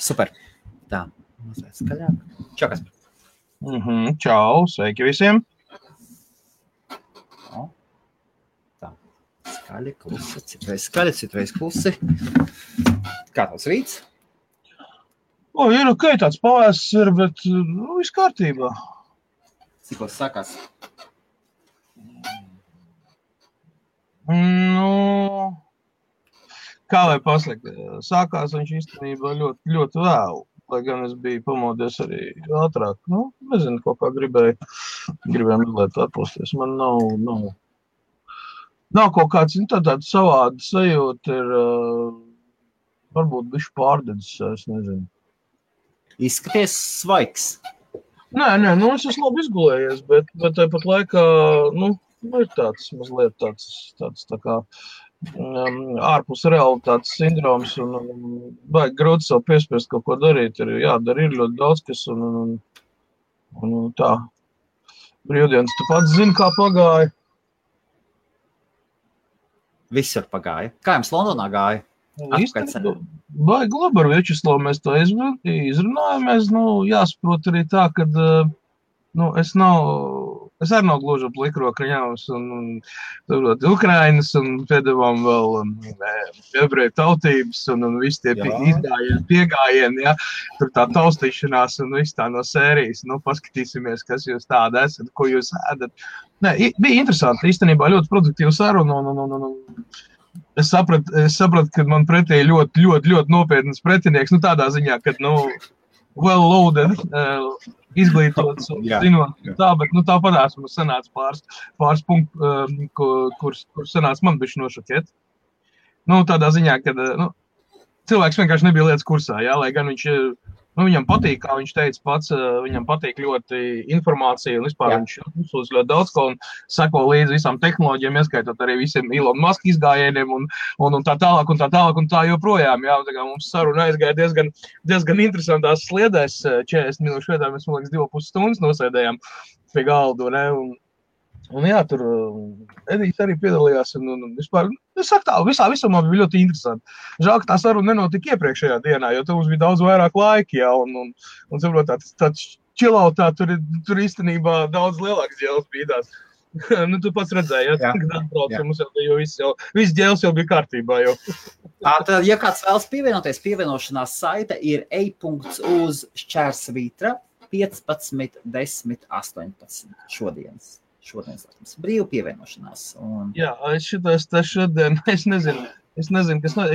Super. Tā, mazliet skaļāk. Čau, Kaspar. Čau, sveiki visiem. Tā, skaļi, klusi, citreiz klusi. Kā tavs rīts? Ir ok, tāds pavāsts ir, bet viss kārtībā. Cikos sākās? Kā lai pasaka, sākās viņš īstenībā ļoti vēlu, lai gan es biju pamodies arī ātrāk. Nezinu, kaut kā gribēju mazliet atpūsties. Man nav kaut kāds, tāda savāda sajūta ir, varbūt bišķi pārdedzis, es nezinu. Izskaties svaigs. Nē, es esmu labi izgulējies, bet tāpat laikā, ir tāds mazliet tāds tā kā ārpus realitātes sindroms un vajag grūti sev piespiest kaut ko darīt. Ir jādara, ir ļoti daudz, kas un tā. Brīvdienas, tu pats zini, kā pagāja? Visur pagāja. Kā jums Londonā gāja? Baigi labi ar Viečeslavu mēs to izrunājamies. Jāsaprot arī tā, ka es arī nav gluži ap likrokriņāvas un Ukrainas un piedevām vēl ebreju tautības un visi tie piegājieni, ja? Tur tā taustīšanās un viss tā no sērijas. Paskatīsimies, kas jūs tāda esat, ko jūs ēdat. Bija interesanti, īstenībā ļoti produktīva saruna un es sapratu, ka man pretī ļoti nopietnas pretinieks, tādā ziņā, ka, well loaded, izglītots, zinot tā, bet tāpatās mums sanāca pāris punkti, kur sanāca man bišķi nošokēt. Tādā ziņā, ka, cilvēks vienkārši nebija lietas kursā, jā, lai gan viņš, viņam patīk, kā viņš teica pats, viņam patīk ļoti informācija un vispār viņš uzsūdz ļoti daudz ko un seko līdzi visām tehnoloģijām, ieskaitot arī visiem Elon Musk izgājieniem un tā tālāk un tā joprojām, jā, tā kā mums saruna aizgāja diezgan interesantās sliedēs, 40 minūšu vietā, mēs, man liekas, 2,5 stundas nosēdējām pie galdu, ne, un jā, tur Edijs arī piedalījās un vispār, es saku tā, visumā bija ļoti interesanti. Žēl, ka tā saruna nenotika iepriekšējā dienā, jo tur mums bija daudz vairāk laika, jā, un saprot, tāds chillautā tur īstenībā daudz lielāks ģēles bīdās. Tu pats redzēji, ja? Kad atbrauc, mums jau viss ģēles jau bija kārtībā jau. Tad, ja kāds vēlas pievienoties, pievienošanās saite ir ej.uz/Vitra 15 10 18 šodienas brīvu pievienošanās. Jā, es šodien, es nezinu, es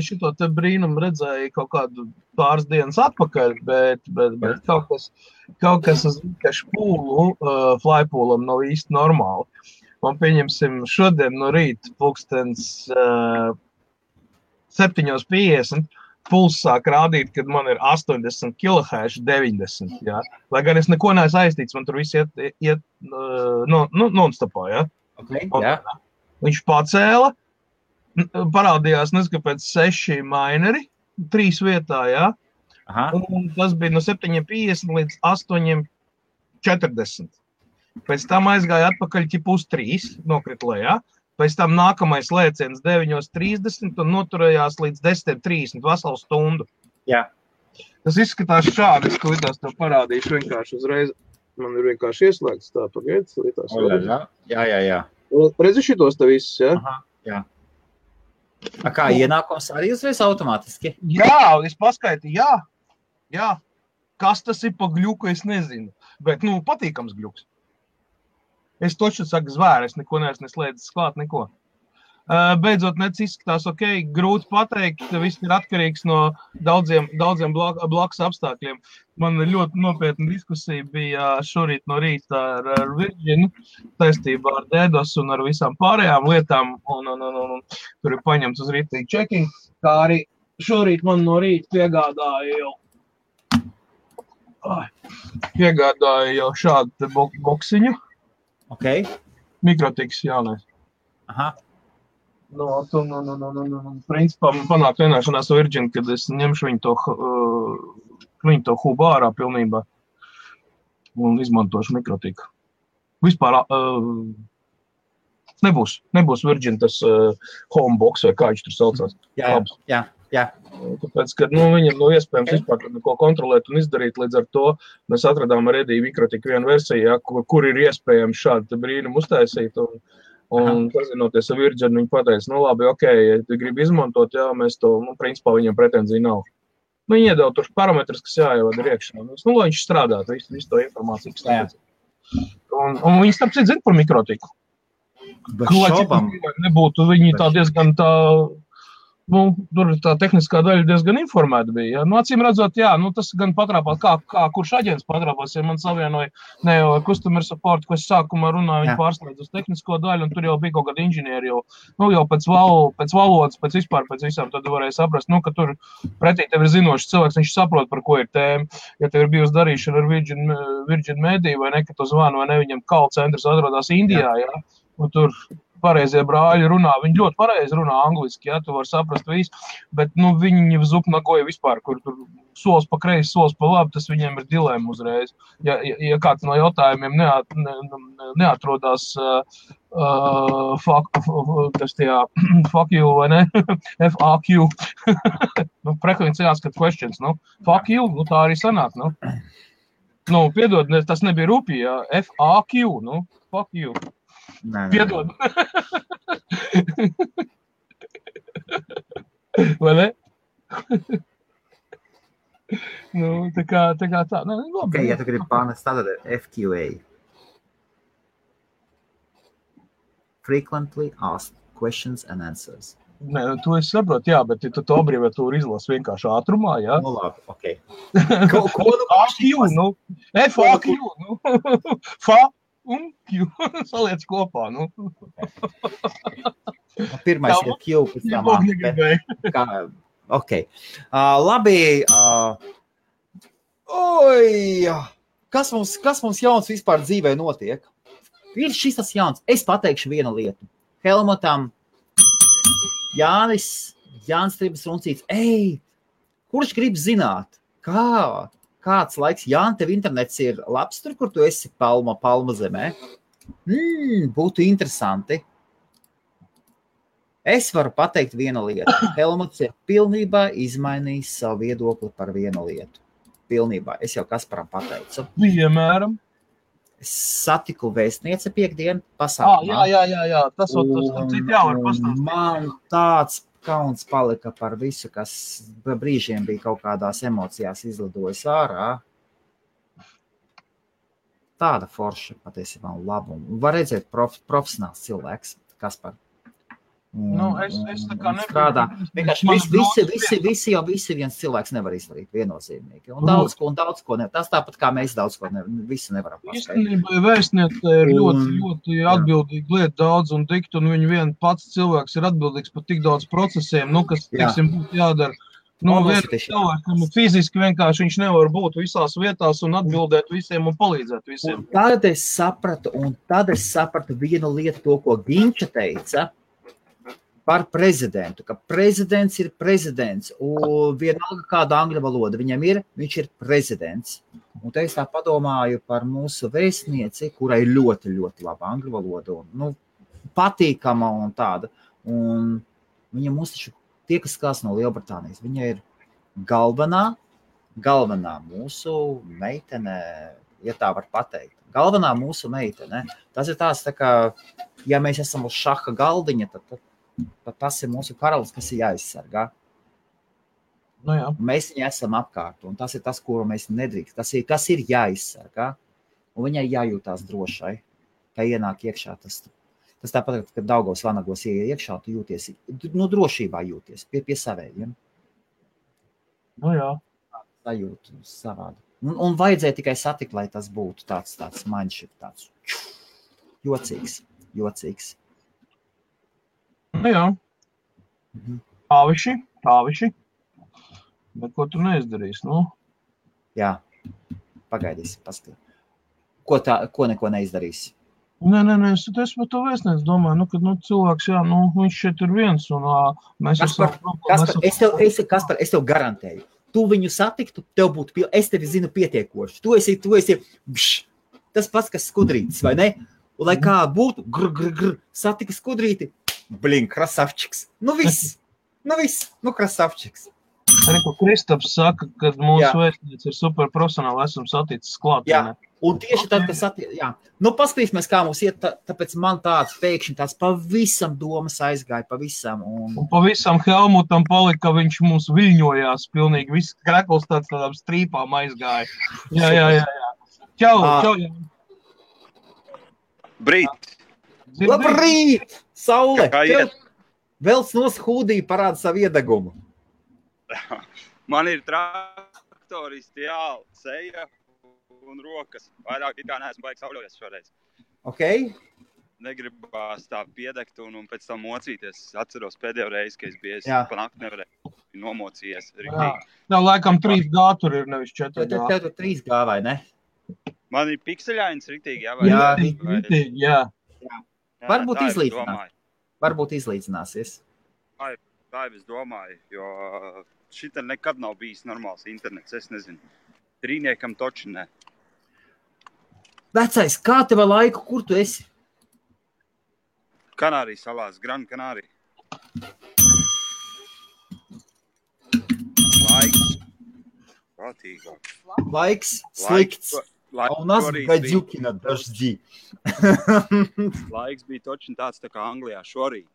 šito te brīnumu redzēju kaut kādu pāris dienas atpakaļ, bet kaut kas uz Vikašu pūlu, flypūlam nav īsti normāli. Man pieņemsim šodien no rīta pulkstens 7:50. Puls sāk rādīt, kad man ir 80 kHz 90, jā. Lai gan es neko neesmu aiztīts, man tur viss iet non-stopā, jā. Okay, jā. Viņš pacēla, parādījās, nezinu, kāpēc 6 mineri, 3 vietā, jā. Aha. Un tas bija no 7:50 līdz 8:40. Pēc tam aizgāja atpakaļ ķip uz 3, nokrit lejā. Pēc tam nākamais lēciens 9:30 un noturējās līdz 10:30, veselu stundu. Jā. Tas izskatās šādi, es klitās tev parādīšu vienkārši uzreiz. Man ir vienkārši ieslēgts tā, pagaid. Jā. Redzi šitos te visus, jā? Aha, jā. Kā ienākums arī uzreiz automātiski? Jā, es paskaitīju, jā. Kas tas ir pa gļuku, es nezinu. Bet, patīkams gļuks. Es toču saku zvēru, es neko neesmu neslēdzis klāt, neko. Beidzot, izskatās ok, grūti pateikt, viss ir atkarīgs no daudziem blakus apstākļiem. Man ļoti nopietna diskusija bija šorīt no rīta ar Virginu, saistībā ar DDoS un ar visām pārējām lietām, un tur ir paņemts uz rītīgi checking, kā arī šorīt man no rīta piegādāja jau šādu boksiņu. Ok. Mikrotiks jaunais. Aha. Principā man panāk vienāšanās Virgin, kad es ņemšu viņu to hubu ārā pilnībā un izmantošu mikrotiku. Vispār nebūs Virgin tas homebox vai kā viņš tur saucās. Jā. Jā. Tāpēc, ka viņam iespējams vispār neko kontrolēt un izdarīt, līdz ar to mēs atradām ar Ediju Mikrotiku vienu versiju, ja, kur ir iespējams šādu brīnumu uztaisīt, un pazinoties ar Virģinu, viņi pateica, labi, ja tu gribi izmantot, jā, mēs to, principā viņam pretenzija nav. Viņi iedod tur parametrus, kas jāievada ir iekšā. Lai viņš strādātu, visu to informāciju, kas tāpēc. Un viņi starp citu zina par Mikrotiku. Lai cik nebūtu, viņi tā diezgan tā... tur tā tehniskā daļa diezgan informēta bija. Ja? Acīm redzot, jā, tas gan patrāpās, kā kurš aģents patrāpās, ja man savienoja ne jau customer support, ko es sākumā runāju, viņi pārslēdz uz tehnisko daļu, un tur jau bija kaut kādi inženieri, jau pēc valodas, pēc visām, tad varēja saprast, ka tur pretī tev ir zinošs cilvēks, viņš saprot, par ko ir tēma. Ja tev ir bijusi darīšana ar Virgin Media, vai ne, ka tu zvani, vai ne, viņam call centrs atrodas Indijā, ja? Un tur pareizie brāļi runā, viņi ļoti pareizi runā angliski, ja, tu var saprast visu, bet, viņi zupnagoja vispār, kur tur solis pa kreisi, solis pa labi, tas viņiem ir dilēma uzreiz. Ja kāds no jautājumiem neatrodās fuck you, vai ne? FAQ. Frequently asked questions, fuck you, tā arī sanāk, piedod, tas nebija rupi, ja, FAQ, fuck you. Piedod. Vai ne? Tā kā tā. Okay, ja tu gribi pārnest, tad FQA. Frequently asked questions and answers. Nē, tu es saprotu, jā, bet tu to abreviatūru izlasi vienkārši ātrumā, jā? Labi, okei. FAQ, FAQ, FA. Un Q saliec kopā, Pirmais ir Q, pēc tam ok. Labi. Kas mums jauns vispār dzīvē notiek? Ir šis tas jauns. Es pateikšu vienu lietu. Helmutam, Jānis Tribas Runcīts. Kurš grib zināt, kāds laiks, Jāni, tev internets ir labs tur, kur tu esi Palma zemē? Būtu interesanti. Es varu pateikt vienu lietu. Helmuts ir pilnībā izmainījis savu viedokli par vienu lietu. Pilnībā. Es jau Kasparam pateicu. Piemēram. Es satiku vēstnieci piekdienu pasākumā. Jā. Tas citi jau var pastāstīt. Man tāds kauns palika par visu, kas brīžiem bija kaut kādās emocijās izlidojis ārā. Tāda forša patiesībā laba. Var redzēt profesionāls cilvēks, Kaspar. Es tā kā strādā. Visi viens cilvēks nevar izdarīt viennozīmīgi. Un daudz ko nevar. Tas tāpat kā mēs daudz ko visu nevaram paskaidrot. Īstenībā vēstniece ir ļoti atbildīga lieta daudz un dikt, un viņa vien pats cilvēks ir atbildīgs par tik daudz procesiem, kas, teiksim, būtu jādara. Cilvēkam fiziski vienkārši viņš nevar būt visās vietās un atbildēt visiem un palīdzēt visiem. Un tad es sapratu vienu lietu, to, ko Ginča teica, par prezidentu, ka prezidents ir prezidents, un vienalga kāda angļu valoda viņam ir, viņš ir prezidents. Un te es tā padomāju par mūsu vēstnieci, kurai ļoti, ļoti laba angļu valoda, un, patīkama un tāda. Un viņa mums taču tie, kas skās no Lielbritānijas, viņa ir galvenā mūsu meitene, ja tā var pateikt. Galvenā mūsu meitene. Tas ir tās, tā kā, ja mēs esam uz šaha galdiņa, tad tas ir mūsu karalis, kas ir jāizsargā. Jā. Mēs viņu esam apkārt, un tas ir tas, kuru mēs nedrīkst. Kas ir jāizsargā, un viņai jājūtās drošai, ka ienāk iekšā. Tas tāpat, ka Daugavas vanagos ieiet iekšā, tu jūties, drošībā jūties pie savējiem. Jā. Sajūt savādi. Un vajadzēja tikai satikt, lai tas būtu tāds mindship, tāds jocīgs. Jā. Tāviši. Bet ko tu neizdarīsi, Jā, pagaidīsi, paskatīt. Ko neko neizdarīsi? Nē, es par to vēstnieci domāju, ka cilvēks, viņš šeit ir viens, un mēs Kaspar, es tev garantēju. Tu viņu satiktu, tev būtu, es tevi zinu pietiekoši. Tu esi, tas pats, kas skudrītis, vai ne? Un lai kā būtu, satika skudrīti, krasavčiks. Viss. Viss, krasavčiks. Arī, ko Kristaps saka, kad mūsu vēstniec ir superprofesionāli, esam saticis klāt. Jā, un tieši tad, paskatīsimies, kā mums iet, tāpēc man tāds pēkšņi tāds pavisam domas aizgāja, pavisam. Un pavisam Helmutam palika, viņš mums viļņojās pilnīgi, viss krekls tādām strīpām aizgāja. Jā. Čau. Labrīt! Saule! Velc nos hūdī parāda savu iedegumu. Man ir traktoristi, seja un rokas. Vairāk it kā neesmu baigi sauļojies šoreiz. Ok. Negribās tā piedegt un pēc tam mocīties. Atceros pēdējo reizi, ka es biju pa nakti nevarēju nomocījies. Jā, laikam 3G tur ir, nevis 4G. Tev tur 3G vai ne? Man ir pikseļains riktīgi, Jā, riktīgi, jā. Varbūt izlīdzinās. Varbūt izlīdzināsies. Tā jau es domāju, jo šita nekad nav bijis normāls internets, es nezinu. Trīniekam toči ne. Vecais, kā tev laiku, kur tu esi? Kanārijas salās, Gran Kanārija. Laiks. Prātīgāk. Laiks slikts. У нас гадюки на дожди. Laiks bija toči tāds tā kā Anglijā šorīt.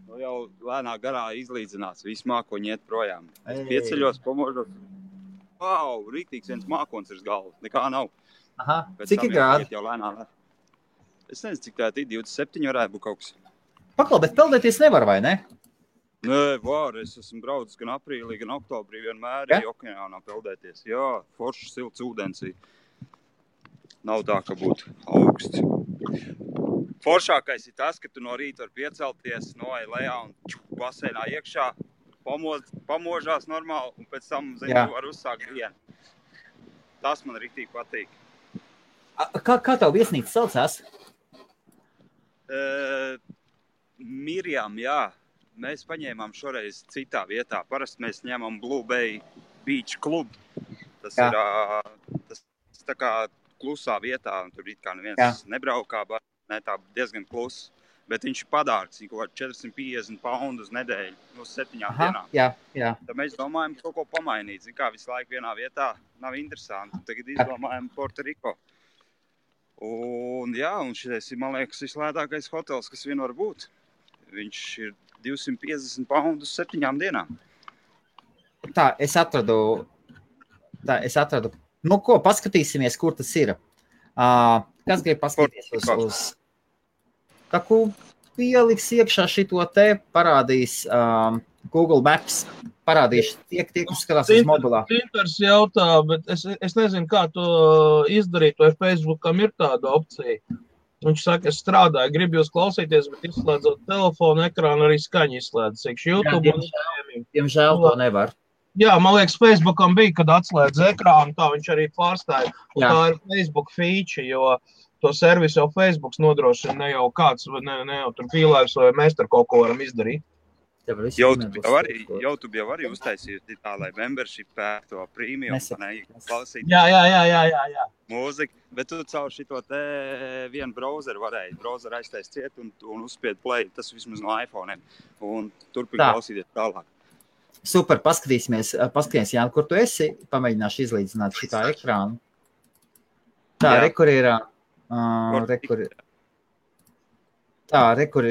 Nu jau lēnā garā izlīdzinās, visi mākoņi iet projām. Pieceļos, pamožos. Wow, rīktīgs viens mākons ir galvas, nekā nav. Aha, cik ir grādi? Es nezinu, cik tā ir 27 varētu būt kaut kas. Paklau, bet peldēties nevar, vai ne? Nē, var, es esmu braucis gan aprīlī, gan oktobrī vienmēr okeānā peldēties. Jā, foršs silts ūdens. Nav tā, ka būtu augsts. Foršākais ir tas, ka tu no rīta var piecelties, noej lejā un baseinā iekšā, pamožās normāli un pēc tam, tu var uzsākt dienu. Tas man riktīgi patīk. Kā tev viesnīca saucās? Mirjam, jā. Mēs paņēmām šoreiz citā vietā. Parasti mēs ņemam Blue Bay Beach Club. Tas ir tā kā klusā vietā, un tur it kā neviens nebraukā, tā diezgan kluss. Bet viņš ir padārgs, viņš kaut 450 poundu uz nedēļu, uz 7 dienām. Jā. Tad mēs domājam kaut ko pamainīt. Zin kā visu laiku vienā vietā nav interesanti. Tagad izdomājam Puerto Rico. Un šitais ir, man liekas, vislētākais hotels, kas vien var būt. Viņš ir 250 poundu uz 7 dienām. Tā, es atradu. Nu ko, paskatīsimies, kur tas ir. Kas grib paskatīties uz taku pieliks iekšā šito te, parādīs Google Maps, parādīs tie, kas skatās uz mobilā. Tinters jautā, bet es nezinu, kā to izdarīt, vai Facebookam ir tāda opcija. Viņš saka, es strādāju, gribu jūs klausīties, bet izslēdzot telefonu ekrānu, arī skaņu izslēdz. Diemžēl to nevar. Jā, man liekas, Facebookam bija, kad atslēdz ekrānu, tā viņš arī pārstāja. Un tā ir Facebook feature, jo to servisu jau Facebooks nodrošina, ne jau kāds, ne jau tur pīlērs, vai mēs tur kaut ko varam izdarīt. YouTube jau arī uztaisīja tā, lai membership to premium, klausīt. Jā. Mūzika, bet tu caur šito te vienu browseru varēji. Browseru aiztaist ciet un uzspied play, tas vismaz no iPhone'iem. Un turpin klausīties tālāk. Super, paskatīsimies, Jāni, kur tu esi, pamēģināšu izlīdzināt šitā ekrānu. Tā, rekur ir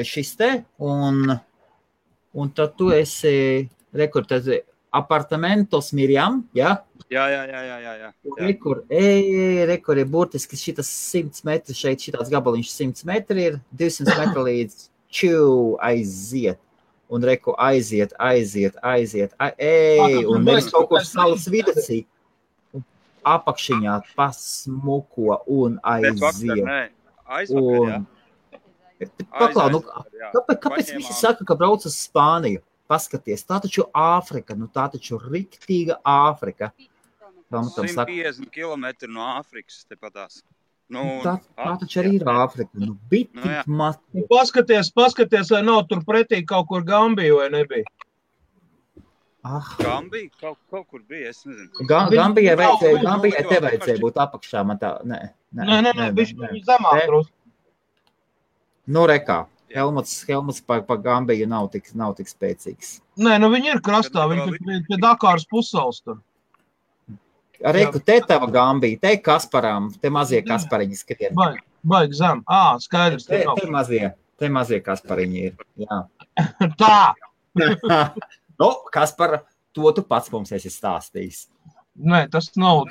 šis te, un tad tu esi, rekur, tad apartamentos Mirjam, jā? Jā. Rekur ir burtiski šitas 100 metri šeit, šitāds gabaliņš 100 metri ir, 200 metri līdz aiziet. Un reku aiziet, un nevis kaut kur salas vidacī. Apakšiņā pasmuko un aiziet. Paklau, kāpēc visi saka, ka brauc uz Spāniju? Paskaties, tā taču Āfrika, tā taču riktīga Āfrika. 150 kilometri no Āfrikas tepatās. Tā taču arī ir Āfrika. Paskaties, vai nav tur pretī kaut kur Gambija, vai nebija? Gambija? Kaut kur bija, es nezinu. Gambijai te vajadzēja būt apakšā, man tā, nē. Nē, viņš zemāk drusku. Nu, rekā. Helmuts pa Gambiju nav tik spēcīgs. Nē, nu viņi ir krastā, viņi pie Dakāras pussals tur. Reiku, te tava Gambija, te Kasparām, te mazie Kaspariņi skrien. Baigi zem. Skaidrs. Te mazie Kaspariņi ir, jā. Tā! Nu, Kaspara, to tu pats mums esi stāstījis. Nē, tas nav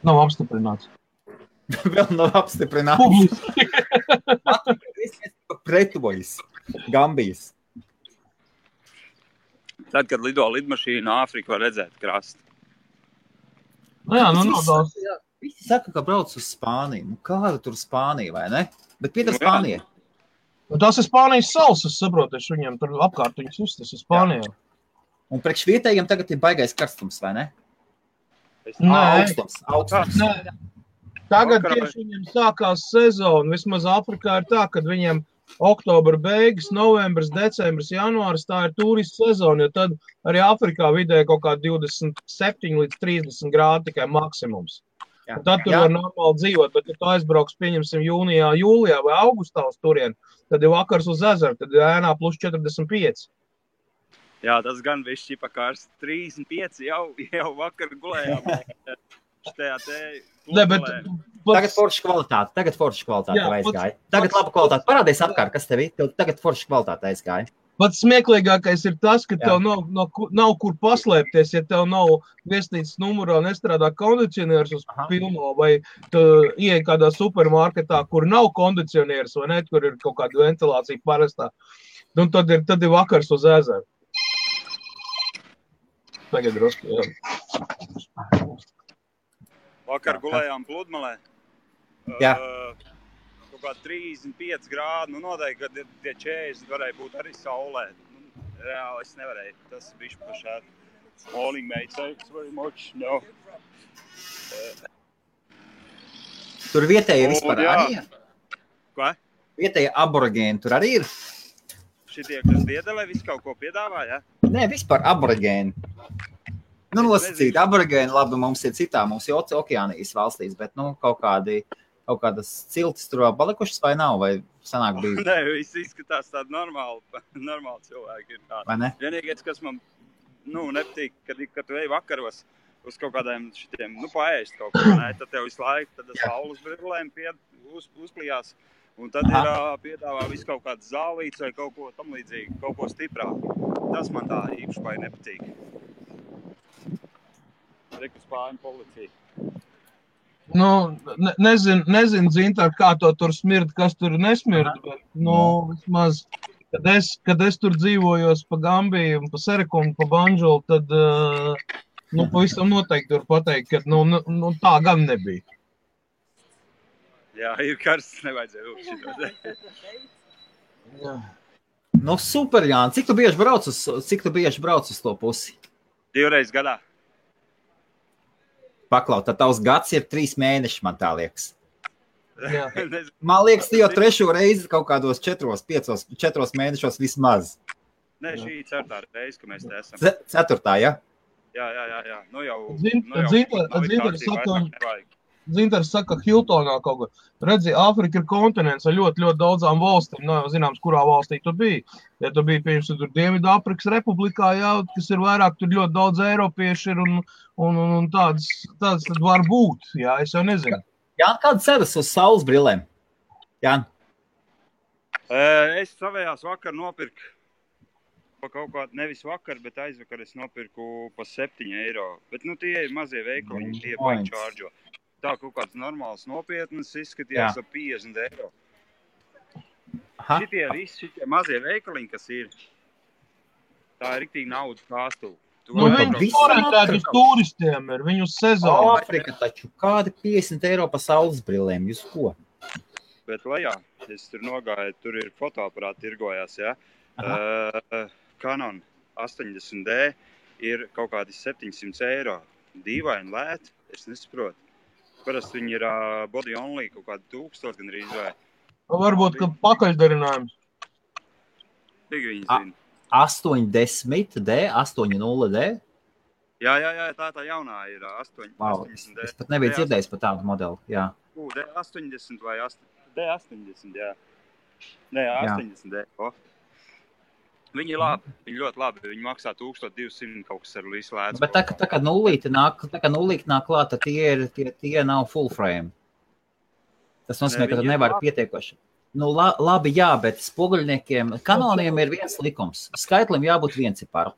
apstiprināts. Vēl nav apstiprināts. Pretojas, Gambijas. Tad, kad lido lidmašīna, Āfrika var redzēt krastu. Nu jā, nav daudz. Visi saka, ka brauc uz Spāniju. Nu, kāda tur Spānija, vai ne? Bet piedar Spānija. Tas ir Spānijas salas, es saprotu, viņiem tur apkārt viņas uztas ir Spānijā. Un priekš vietējiem tagad ir baigais karstums, vai ne? Augstums. Nē. Tagad tieši viņiem sākās sezona. Vismaz Afrikā ir tā, kad viņiem oktobra beigas, novembris, decembris, janvāris, tā ir turistu sezona, jo tad arī Afrikā vidēji kaut kā 27 līdz 30 grādi tikai maksimums. Jā. Tad tur var normāli dzīvot, bet ja tu aizbrauks, pieņemsim, jūnijā, jūlijā vai augustā uz turien, tad ir vakars uz ezeru, tad ir ēnā plus 45. Jā, tas gan viss šķipa kārs 35 jau vakar gulējām. Tagad forša kvalitāte aizgāja. Tagad laba kvalitāte. Parādies apkārt, kas tev ir. Tagad forša kvalitāte aizgāja. Pats smieklīgākais ir tas, ka tev nav kur paslēpties, ja tev nav viesnīcas numurā nestrādā kondicionieris uz pilno, vai tu ieej kādā supermarketā, kur nav kondicionieris, vai ne, kur ir kaut kāda ventilācija parastā. Un tad ir vakars uz ezeru. Tagad drusku, jā. Vakar gulējām Pludmalē. Jā. Kaut kā 35 grādi, noteikti, ka tie 40 varēja būt arī saulē. Reāli es nevarēju. Tas bišķi pašādi. Morning, mate. Thanks very much. No. Tur vietēji vispār arī ir? Ko? Vietēji aborigēni tur arī ir? Šitie, kas Viedelē visu kaut ko piedāvā, ja? Nē, vispār aborigēni. Nu, nosacīt, aborigēni, labi, mums ir citā, mums ir Okeānijas valstīs, bet, kaut kādas ciltis tur vēl palikušas vai nav, vai sanāk bija? Nē, viss izskatās tādi normāli cilvēki ir tādi. Vai ne? Vienīgais, kas man, nepatīk, kad tu ej vakaros uz kaut kādiem šitiem, paēst kaut ko, ne, tad tev visu laiku, tad saules brillēm uzklijās. Un tad ir piedāvā visu kaut kāds zālīts vai kaut ko tam līdzīgi, kaut ko stiprāku. Tas man tā īpaši nepatīk. Reku Spāņu policija. Nezinu, Zintār, kā to tur smird, kas tur nesmird, bet, vismaz, kad es tur dzīvojos pa Gambiju, pa Sereku un pa Banžulu, tad, pavisam noteikti var pateikt, ka, tā gan nebija. Jā, ir karsts, nevajadzēja šitos. Jā. Super, Jāni. Cik tu bieži brauc uz to pusi? 2 reizes gadā. Paklaut, tad tavs gads ir 3 mēneši, man tā liekas. Jā. Man liekas, tu jau 3. reizi kaut kādos 4 mēnešos vismaz. Nē, šī 4. reize, ka mēs te esam. 4. ja? Jā. Zintars saka, Hiltonā kaut ko. Redzi, Āfrika ir kontinents ar ļoti, ļoti daudzām valstīm. Nav zināms, kurā valstī tu biji. Ja tu biji, piemēram, tur Dienvidāfrikas republikā, jā, kas ir vairāk, tur ļoti daudz eiropieši ir un tāds tad var būt. Jā, es jau nezinu. Jā, kādas ceras uz saules brillēm? Jā. Es savējās vakar nopirku kaut kā, nevis vakar, bet aizvakar es nopirku pa 7 eiro. Bet, tie ir mazie veikali, tie baigi čārdžo. Tā kaut kāds normāls nopietnas izskatījās ap 50 eiro. Šitie mazie veikaliņi, kas ir, tā ir riktīgi naudas kāstuvi. Viņi orientēti uz turistiem ir, viņu sezonu. Āfrika taču, kādi 50 eiro pa saules brillēm, jūs ko? Bet lejā, es tur nogāju, tur ir fotoaparāti tirgojās, jā. Canon 80D ir kaut kādi 700 eiro. Dīvaini lēti, es nesaprotu. Parasti viņi ir body only, kaut kādi 1000 gan arī vai. Varbūt, ka pakaļdarinājums. Cik viņi zina? 80D, 80D? Jā, tā jaunā ir 80D. Es pat nebiju dzirdējis par tādu modeli, jā. 80 vai D80, jā. Nē, 80D. Viņi ir labi, viņi ļoti labi. Viņi maksā 1200 kaut kas ar visu lēdzu. Bet tā kā nulīti nāk klāt, tad tie nav full frame. Tas nozīmē, ka tu nevari pietiekoši. Nu, labi, jā, bet spoguļniekiem, kanoniem ir viens likums. Skaitlim jābūt vienciparu.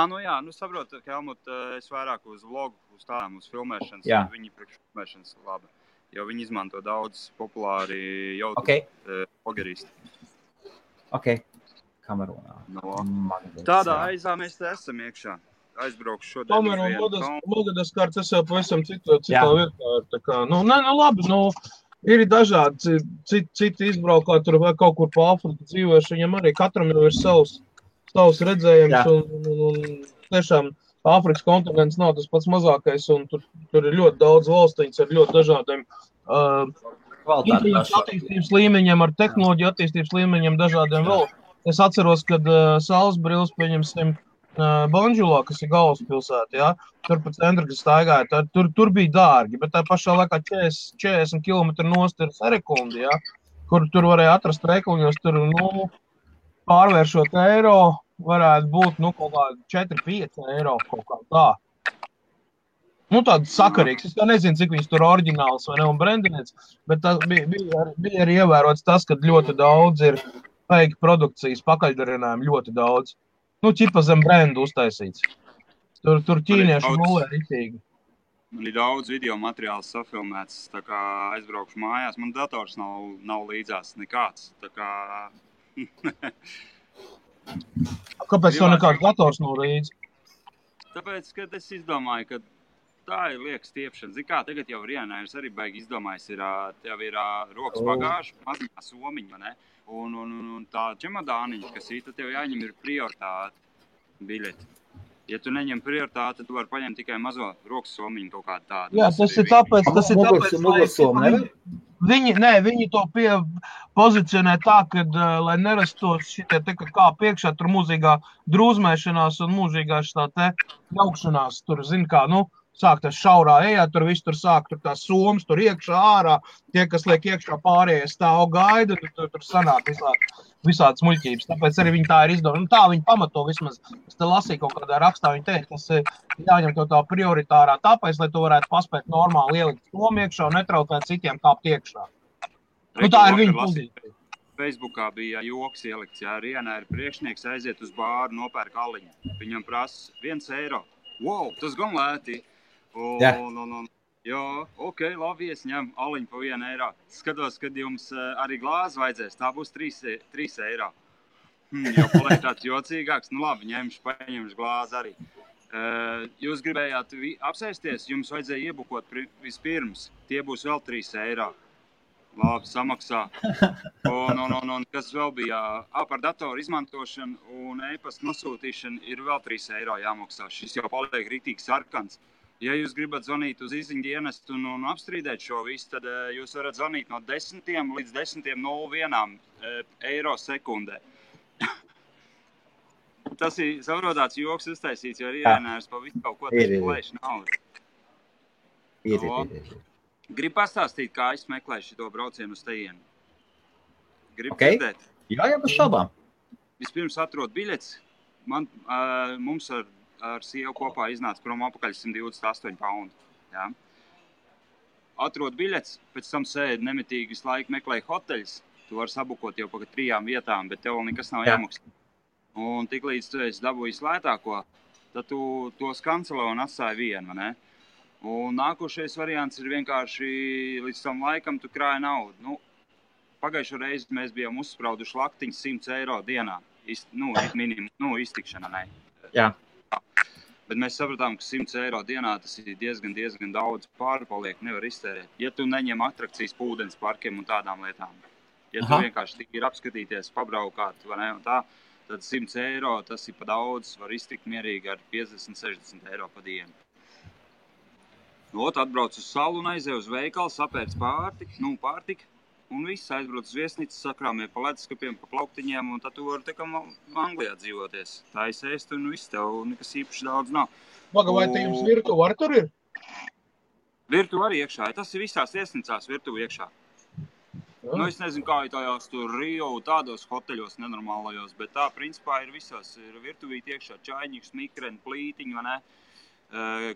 Nu jā, saprotu, ka Helmut, es vairāk uz vlogu, uz tādām, uz filmēšanas. Jā. Viņi priekš filmēšanas labi. Jo viņi izmanto daudz populāri jau vlogeristi. Ok. Kamerunā. Tādā aizā mēs te esam iekšā. Aizbraukšu šodien. Kamerun Madagaskar, tas jau pavisam citā vietā. Tā kā, labi, ir dažādi citi izbraukā, tur vai kaut kur pa Afriku dzīvojuši. Viņam arī katram jau ir savs redzējums. Un tiešām Āfrikas kontinents nav tas pats mazākais, un tur ir ļoti daudz valstiņas ar ļoti dažādiem attīstības līmeņiem, ar tehnoloģiju attīstības līmeņiem dažādiem vēl. Es atceros, kad saules brilles, pieņemsim, Banjulā, kas ir galvaspilsēta, ja, tur pa centru, kas staigāja, tur bija dārgi, bet tā pašā laikā 40 km nost ir sekundi, ja, kur tur varēja atrast veikaliņos, tur, pārvēršot eiro, varētu būt, kaut kā 4-5 eiro kaut kā tā. Tāds sakarīgs. Es nezinu, cik viņas tur oriģināls vai ne un brendinēts, bet tas bija arī ievērots tas, ka ļoti daudz ir fake produkcijas pakaļdarinājumu, ļoti daudz. Ķipa zem brendu uztaisīts. Tur ķīnieši mūlē ritīgi. Man ir daudz video materiāls safilmēts, tā kā aizbraukšu mājās. Man dators nav līdzās nekāds, tā kā... Kāpēc tev nekāds dators nav līdzi? Tāpēc, kad es izdomāju, ka tā ir lieka stiepšana. Zini kā, tagad jau Rienājums arī baigi izdomājis, tev ir rokas bagāža, maziņā somiņa, ne? Un tā čemodāniņa, kas ir, tad tev jāņem ir prioritāte biļeti. Ja tu neņem prioritāti, tad tu vari paņemt tikai mazo rokas somiņu kaut kādu tādu. Jā, tas ir tāpēc, Viņi to pozicionē tā, ka, lai nerastos šitie te kā priekšā, tur mūžīgā drūzmēšanās un mūžīgā šitā te jaukšanās, tur, zin kā, sāk tas šaurā ejā, tur viss tur sāk, tur tās somas, tur iekšā ārā, tie, kas liek iekšā pārējie stāv gaida, tur sanāk visādas muļķības, tāpēc arī viņi tā ir izdomāta. Tā viņi pamato vismaz, es te lasīju kaut kādā rakstā, viņi teikt, tas jāņem to tā prioritārā, tāpēc, lai tu varētu paspēt normāli ielikt somu iekšā un netraucēt citiem kāpt iekšā. Tā ir viņa pozīcija. Facebookā bija joks ielikts, ja Rienā ir priekšnieks aiziet uz bāru, nopērk aliņu. Viņam prasa 1 eiro. Wow, tas gan lēti. Jā, ok, labi, es ņem aliņu pa 1 eiro. Skatos, kad jums arī glāzi vajadzēs, tā būs 3 eiro. Jau paliek tāds jocīgāks, labi, paņemšu glāzi arī. Jūs gribējāt apsēsties, jums vajadzēja iebukot vispirms, tie būs vēl 3 eiro. Labi, samaksā. Un kas vēl bija, par datoru izmantošanu un e-pasta nosūtīšanu ir vēl 3 eiro jāmaksā. Šis jau paliek rītīgi sarkans. Ja jūs gribat zvanīt uz izziņu dienestu un apstrīdēt šo visu, tad jūs varat zvanīt no 10 līdz 10:01 eiro sekundē. Tas ir saprotāts joks uztaisīts, jo Rienājums pa visu kaut ko taču plēš naudu. Ir. Gribu pastāstīt, kā es meklēju šito braucienu uz tejienu. Gribu dzirdēt? Jā, bez šaubām. Vispirms atrod biļets. Mums ar sievu kopā iznāca prom apakaļ 128 paundi. Jā. Atrod biļets, pēc tam sēdi nemitīgi visu laiku meklēju hoteļus. Tu vari sabukot jau pa 3 vietām, bet tev nekas nav jāmaksā. Un tik līdz tu esi dabūjis lētāko, tad tu tos kancelē un atstāji vienu, ne? Un nākošais variants ir vienkārši līdz tam laikam tu krāji naudu. Pagājušo reizi mēs bijām uzsprauduši laktiņas 100 eiro dienā. Iztikšana, ne? Jā. Bet mēs sapratām, ka 100 eiro dienā tas ir diezgan daudz pārpaliek, nevar iztērēt. Ja tu neņem atrakcijas pūdens parkiem un tādām lietām. Ja tu vienkārši ir apskatīties, pabraukāt, vai ne, un tā, tad 100 eiro tas ir pa daudz, var iztikt mierīgi ar 50-60 eiro pa dienu. Atbrauc uz salu un aizēju uz veikalu, sapērc pārtika, un viss aizbrauc uz viesnīcu, sakrāmie pa leduskapiem, pa plauktiņiem, un tad tu vari tā kā Anglijā dzīvoties. Tā izēst, un viss tev nekas īpaši daudz nav. Vai te jums virtuve arī tur ir? Virtuve arī iekšā, tas ir visās viesnīcās virtuve iekšā. Nu, es nezinu, kā tajās tur Rio, tādos hoteļos nenormālajos, bet tā, principā, ir visās. Ir virtuvīti iekšā čaiņiks, mikreni, plītiņi, vai ne?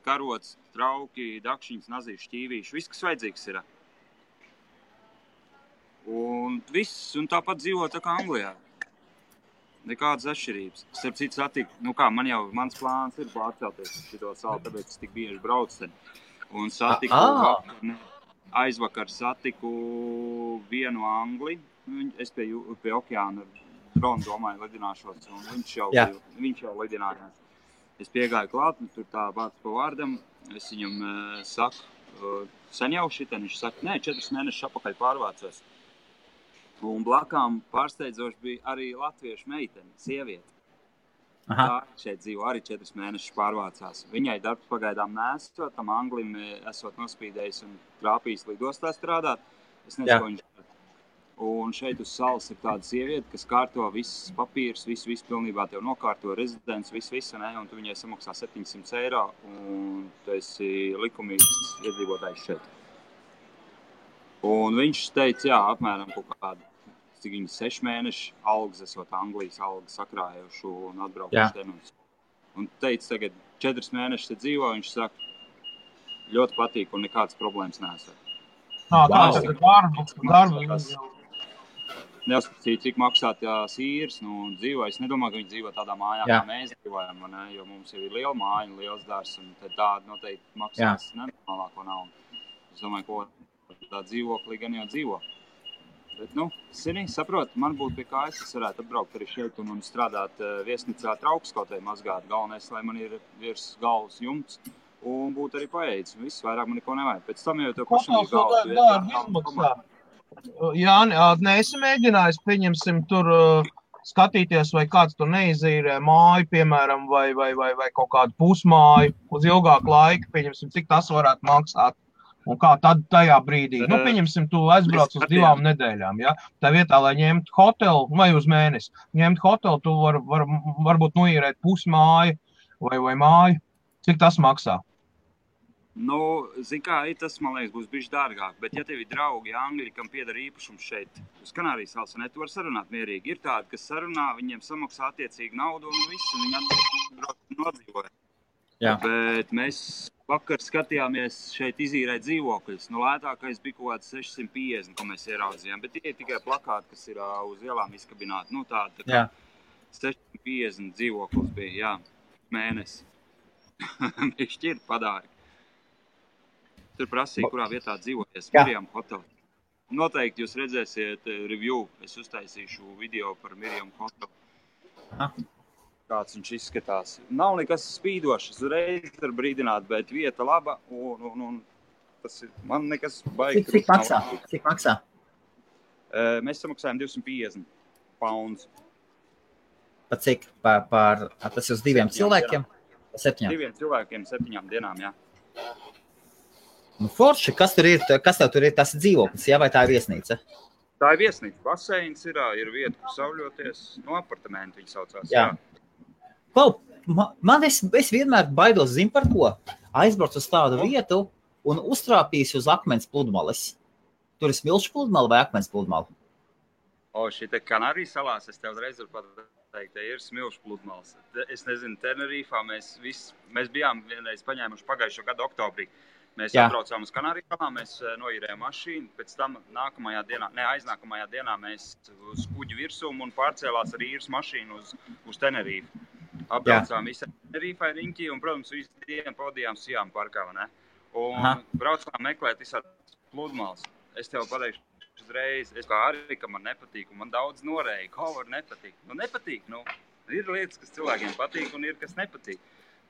Karots, trauki, dakšiņas, nazīši, šķīvīši. Viss, kas vajadzīgs ir. Un viss, un tāpat dzīvo tā kā Anglijā. Nekādas atšķirības. Starp citu satiku, mans plāns ir pārcelties uz šito salu, tāpēc es tik bieži braucu ten. Un aizvakar satiku vienu Angli. Es pie okeāna dronu domāju lidināšos, un viņš jau lidinājās. Es piegāju klāt, un tur tā vārds pa vārdam. Es viņam saku, sen jau šitien, viņš saka, 4 mēnešus apakaļ pārvācos. Un blakām pārsteidzoši bija arī latviešu meitene, sieviete. Tā šeit dzīvo arī 4 mēnešus pārvācās. Viņai darbs pagaidām nesot, tam Anglim esot nospīdējis un trāpījis lidostā strādāt. Es nezinu, ko viņš dara. Un šeit uz salas ir tāda sieviete, kas kārto visas papīras, visu pilnībā tev nokārto rezidents, visu, ne? Un tu viņai samaksā 700 eiro, un tu esi likumīgs iedzīvotājs šeit. Un viņš teica, apmēram kaut kādu, cik viņi 6 mēneši algas esot Anglijas algas sakrājuši un atbraukuši tenus. Un teica, tagad 4 mēnešus te dzīvo, viņš saka, ļoti patīk un nekādas problēmas nesat. Tāds ir darba. Neuzskatīt, cik maksā tās īres, dzīvo. Es nedomāju, ka viņi dzīvo tādā mājā, kā mēs dzīvojam, ne? Jo mums jau ir liela māja un liels dārs, un tad tāda noteikti maksās nenormālāko naudu. Es domāju, ko tā dzīvoklī gan jau dzīvo. Bet, saprot, man būtu pie kājas, es varētu atbraukt arī šeit un strādāt viesnīcā traukskotē mazgāt. Galvenais, lai man ir virs galvas jumts un būtu arī paēdis. Viss vairāk man neko nevajag. Pēc tam jau tev pašam ir galvas. Jāni, neesi mēģinājis, pieņemsim, tur skatīties, vai kāds tur neizīrē māju, piemēram, vai kaut kādu pusmāju uz ilgāku laiku, pieņemsim, cik tas varētu maksāt. Un kā tad tajā brīdī? Pieņemsim, tu aizbrauc uz 2 nedēļām, ja? Tā vietā, lai ņemtu hotelu, vai uz mēnesi, ņemt hotelu, tu varbūt noīrēt pusmāju vai māju. Cik tas maksā? Zin kā, tas, man liekas, būs bišķi dārgāk, bet ja tev ir draugi Angļi, kam pieder īpašums šeit, uz Kanārijas salas, tu vari sarunāt mierīgi. Ir tādi, kas sarunā, viņiem samaksā attiecīgi naudu un visu, un viņi atbrauc nodzīvoja. Bet mēs vakar skatījāmies šeit izīrēt dzīvokļus. Lētākais bija kaut kāds 650, ko mēs ieraudzījām, bet tie ir tikai plakāti, kas ir uz ielām izkabināti. Tā kā 650 dzīvoklis bija, mēnesi. Viņš ir padāri. Tur prasīja, kurā vietā dzīvoties. Miriam Hotel. Noteikti jūs redzēsiet review. Es uztaisīšu video par Miriam Hotel. Kāds viņš izskatās. Nav nekas spīdošs, uzreiz var brīdināt, bet vieta laba un tas ir, man nekas baigi. Cik maksā? Mēs samaksājam 250 pounds. Pa cik? Tas uz 2 cilvēkiem? 7? 2 cilvēkiem 7 dienām, jā. Forši, kas tev tur ir, tas dzīvoklis, vai tā ir viesnīca? Tā ir viesnīca, baseins ir vieta, kur sauļoties, apartamenti viņi saucās, jā. Es vienmēr baidos, zinu par ko, aizbrauc uz tādu vietu un uztrāpīs uz akmens pludmales. Tur ir smilšu pludmale vai akmens pludmale? Šī Kanārijas salās, es tev reiz varu pateikt, ir smilšu pludmales. Es nezinu, Tenerifā mēs bijām vienreiz paņēmuši pagājušo gadu oktobrī. Mēs atbraucām uz Kanārijas salām, mēs noīrējām mašīnu, pēc tam aiznākamajā dienā mēs uz kuģi virsum un pārcēlās ar īres mašīnu uz Tenerifu. Apbraucām visu Tenerifai riņķi un, protams, visu dienu pavadījām Sijām parkā, ne? Un braucām meklēt visādas pludmales. Es tev pateikšu uzreiz, es kā arī, ka man nepatīk, un man daudz norēja, kā var nepatīk. Nepatīk, ir lietas, kas cilvēkiem patīk un ir, kas nepatīk.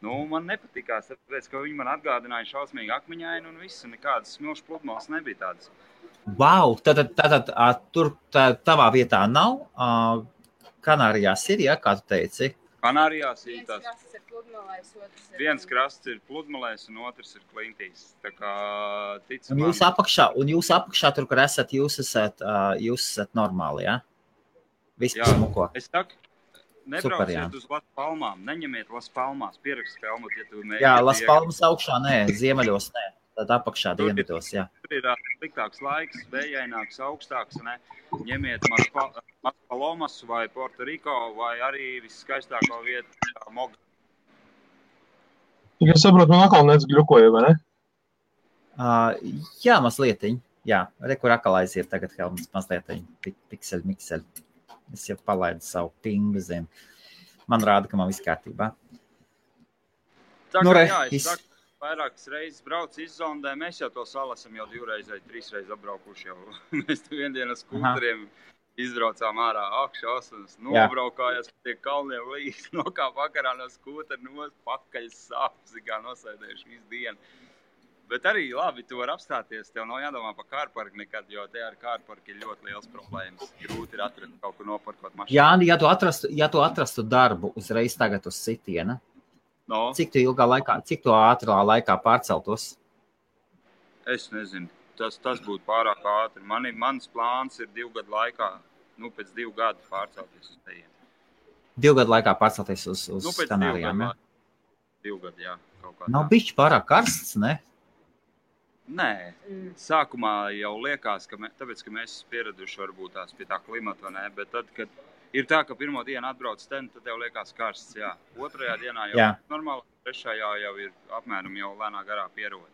Man nepatikās, tāpēc, ka viņi man atgādināja šausmīgi akmeņaini un viss, un nekādas smilšu pludmales nebija tādas. Wow, tad tur tavā vietā nav? Kanārijās ir, kā tu teici? Kanārijās ir tās. Viens krasts ir pludmalēs un otrs ir klintīs. Tā kā un jūs apakšā tur, kur esat, jūs esat normāli, ja? Viss smuko. Es saku, nebrauciet uz Las Palmām, neņemiet Las Palmās, pierakst Helmut, ja tu mēģiniet. Jā, Las Palmas augšā, nē, ziemeļos, nē. Tad apakšā dienvidos, jā. Tur ir sliktāks laiks, vējaināks, augstāks, ne? Ņemiet Maspalomas vai Puerto Rico vai arī viskaistāko vietu Moga. Ja saprotu, man atkal nec gļukoja, vai ne? Jā, mazlietiņ. Jā, kur atkal aiziet tagad Helmuts mazlietiņ. Mikseļ. Es jau palaidu savu pingu zem. Man rāda, ka man viss kārtībā. Tā kā es saku, vairākas reizes brauc izzondē, mēs jau to salu esam jau 2 reizes vai 3 reizes apbraukuši jau. Mēs tu vienu ar skūteriem izbraucām ārā akšos un nobraukājās pie tie kalniem līdz nokā vakarā no skūtera pakaļ sāpes, kā nosēdējuši visu dienu. Bet arī labi, tu var apstāties, tev nav jādomā par kārparku nekad, jo te ar kārparku ir ļoti liels problēmas. Grūti ir atrast kaut kur noparkot mašīnu. Jā, ja tu atrastu darbu uzreiz tagad uz sitiena, no. Cik tu ātrā laikā pārceltos? Es nezinu, tas būtu pārāk ātri. Mans plāns ir 2 gadu laikā, pēc 2 gadu pārcelties uz tejiem. 2 gadu laikā pārcelties uz Kanārijām, ja? 2 gadu, jā. Nav bišķi pārāk karsts, ne? Nē, sākumā jau liekas, tāpēc, ka mēs pieraduši varbūt tās pie tā klimata, ne? Bet tad, kad ir tā, ka pirmo dienu atbrauc ten, tad tev liekas karsts, jā. 2. dienā jau normāli, 3. jau ir apmēram jau lēnā garā pierod.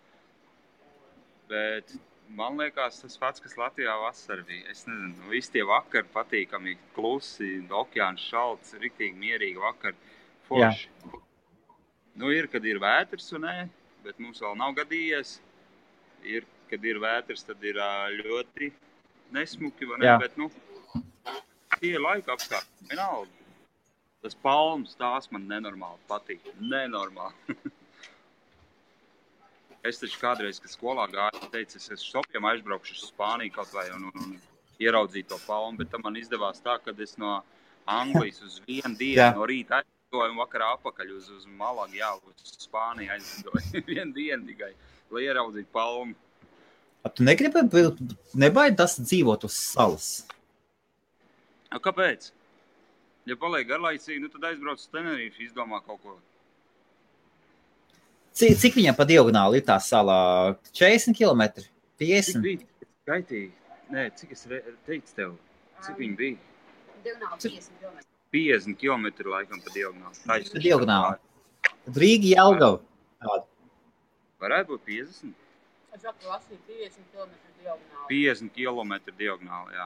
Bet man liekas tas pats, kas Latvijā vasarā bija. Es nezinu, visi tie vakari patīkami, klusi, okeāns šalts, riktīgi mierīgi vakari, forši. Ir, kad ir vētrs un nē, bet mums vēl nav gadījies. Ir, kad ir vētrs, tad ir ļoti nesmuki, vai ne? Bet, tie laika apstākļi, vienalga. Tas palmas, tās man nenormāli patīk. Nenormāli. Es taču kādreiz, kad skolā gāju, teicu, es šopiem aizbraukšu uz Spāniju kaut vai un ieraudzīju to palmu, bet tam man izdevās tā, kad es no Anglijas uz 1 dienu no rīta aizdoju un vakarā apakaļ uz Malagu, uz Spāniju aizdoju. 1 dienu tikai. Lai ieraudzītu palmu. Tu nebaidi tas dzīvot uz salas? Kāpēc? Ja paliek garlaicīgi, tad aizbrauc uz Tenerife, izdomā kaut ko. Cik viņam pa diagonāli ir tā salā? 40 km? 50? Cik bija? Skaitīgi. Nē, cik es teicu tev? Cik viņi bija? Diagonāli 50 km. 50 km laikam pa diagonāli. Pa diagonāli. Rīga Jelgava. Varētu būt 50? Es saku, lasīju 50 km diagonāli. 50 km diagonāli, jā.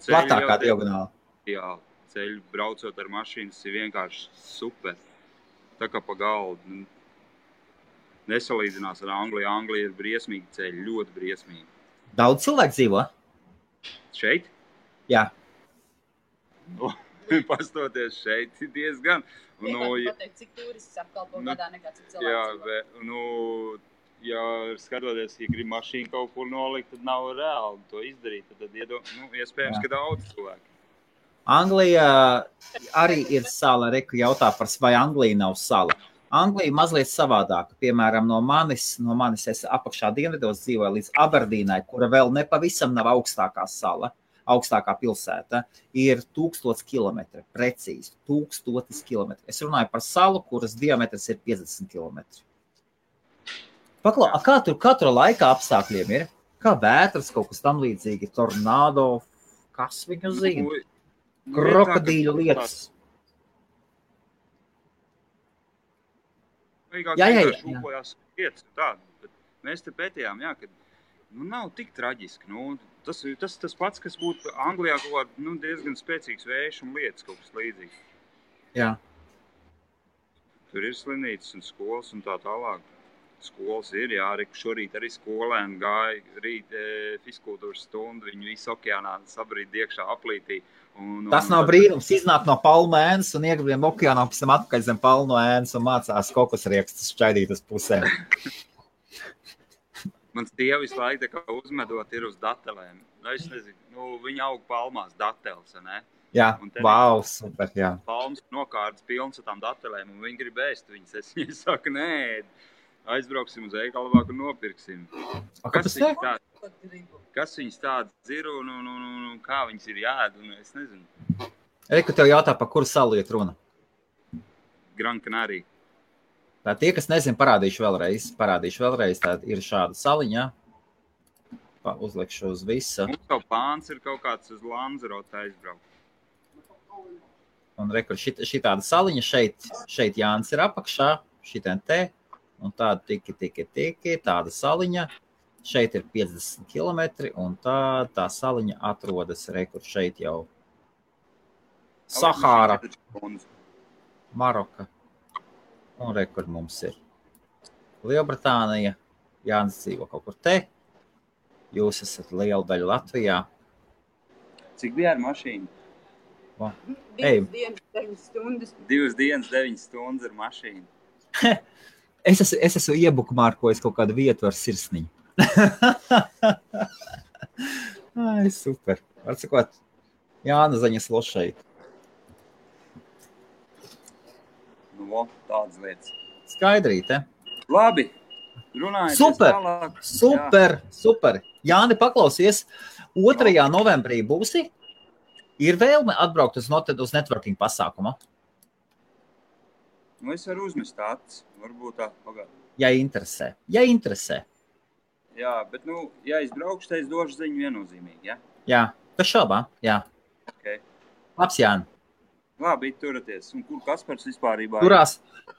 Platākā diagonāli. Jā, ceļu braucot ar mašīnas ir vienkārši super. Tā kā pa galdu. Nesalīdzinās ar Angliju. Anglija ir briesmīgi ceļi, ļoti briesmīgi. Daudz cilvēku dzīvo? Šeit? Jā. Pastoties šeit diezgan. Pateikt, cik turists apkalpo gadā nekā cik cilvēks. Ja skatoties, ja grib mašīnu kaut kur nolikt, tad nav reāli to izdarīt. Tad iespējams, ka daudz cilvēku. Anglija arī ir sala. Reku jautā par, vai Anglija nav sala. Anglija mazliet savādāka. Piemēram, no manis es apakšā dienvidos dzīvoju līdz Aberdīnai, kura vēl nepavisam nav augstākā sala. Augstākā pilsēta ir 1000 km, precīzi 1000 km. Es runāju par salu, kuras diametrs ir 50 km. Paklau, kā tur laika apstākļiem ir? Kā vētras, kaut kas tam līdzīgi, tornado, kas viņu zina? Krokodīļu lietas. Jā. Lietas tādu, bet mēs te pētījām, kad nav tik traģiski. Tas pats, kas būtu Anglijā kaut kā diezgan spēcīgs vējš un lietas kaut kas līdzīgs. Jā. Tur ir slimnīcas un skolas un tā tālāk. Skolas ir, šorīt arī skolēni gāja rīt fiskultūras stundu, viņi visu okeānā sabrīd iekšā aplītī. Tas nav brīnums, iznāk no palmu ēnas un iegribiem okeānā, pēc tam atpakaļ zem palmu ēnas un mācās kokosriekstus šķaidīt uz pusēm. Mans tieva visu laiku tā kā uzmedot ir uz datelēm. Es nezinu, viņi aug palmās dateles, ne? Jā, wow, super, jā. Palmas nokārtas pilns ar tām datelēm un viņi grib ēst viņas. Es viņai saku, nē, aizbrauksim uz Eigalavāku un nopirksim. Kas viņas tādas ir un kā viņas ir jāēd, un es nezinu. Reku tev jautā, par kuru salu iet runa? Gran Canaria. Tā tie, kas nezin, parādīšu vēlreiz. Tā ir šāda saliņa. Uzlikšu uz visu. Mums jau plāns ir kaut kāds uz Lanzarote aizbraukt. Un rekur, šitāda saliņa šeit Jānis ir apakšā, šitien te, un tāda tiki, tāda saliņa. Šeit ir 50 kilometri, un tā saliņa atrodas rekur šeit jau. Sahāra, Maroka. Un rekur mums ir Lielbritānija, Jānis dzīvo kaut kur te, jūs esat liela daļa Latvijā. Cik bija ar mašīnu? 2 dienas, 9 stundas. 2 dienas, 9 stundas ar mašīnu. Es esmu iebukmārkojis kaut kādu vietu ar sirsniņu. Ai, super. Atsakot, Jāna Zaņas lošeit. Nu, tādas lietas. Skaidrīte. Labi, runājies tālāk. Super. Jāni, paklausies, 2. novembrī būsi? Ir vēlme atbraukt uz networking pasākumu? Nu, es varu uzmest acis, varbūt tā pagād. Ja interesē. Jā, bet, ja es braukšu, tad es došu ziņu viennozīmīgi, ja? Jā, bez šaubām, jā. Okay. Labs, Jāni. Labi, turaties. Un kur Kaspars vispārībā ir? Turās.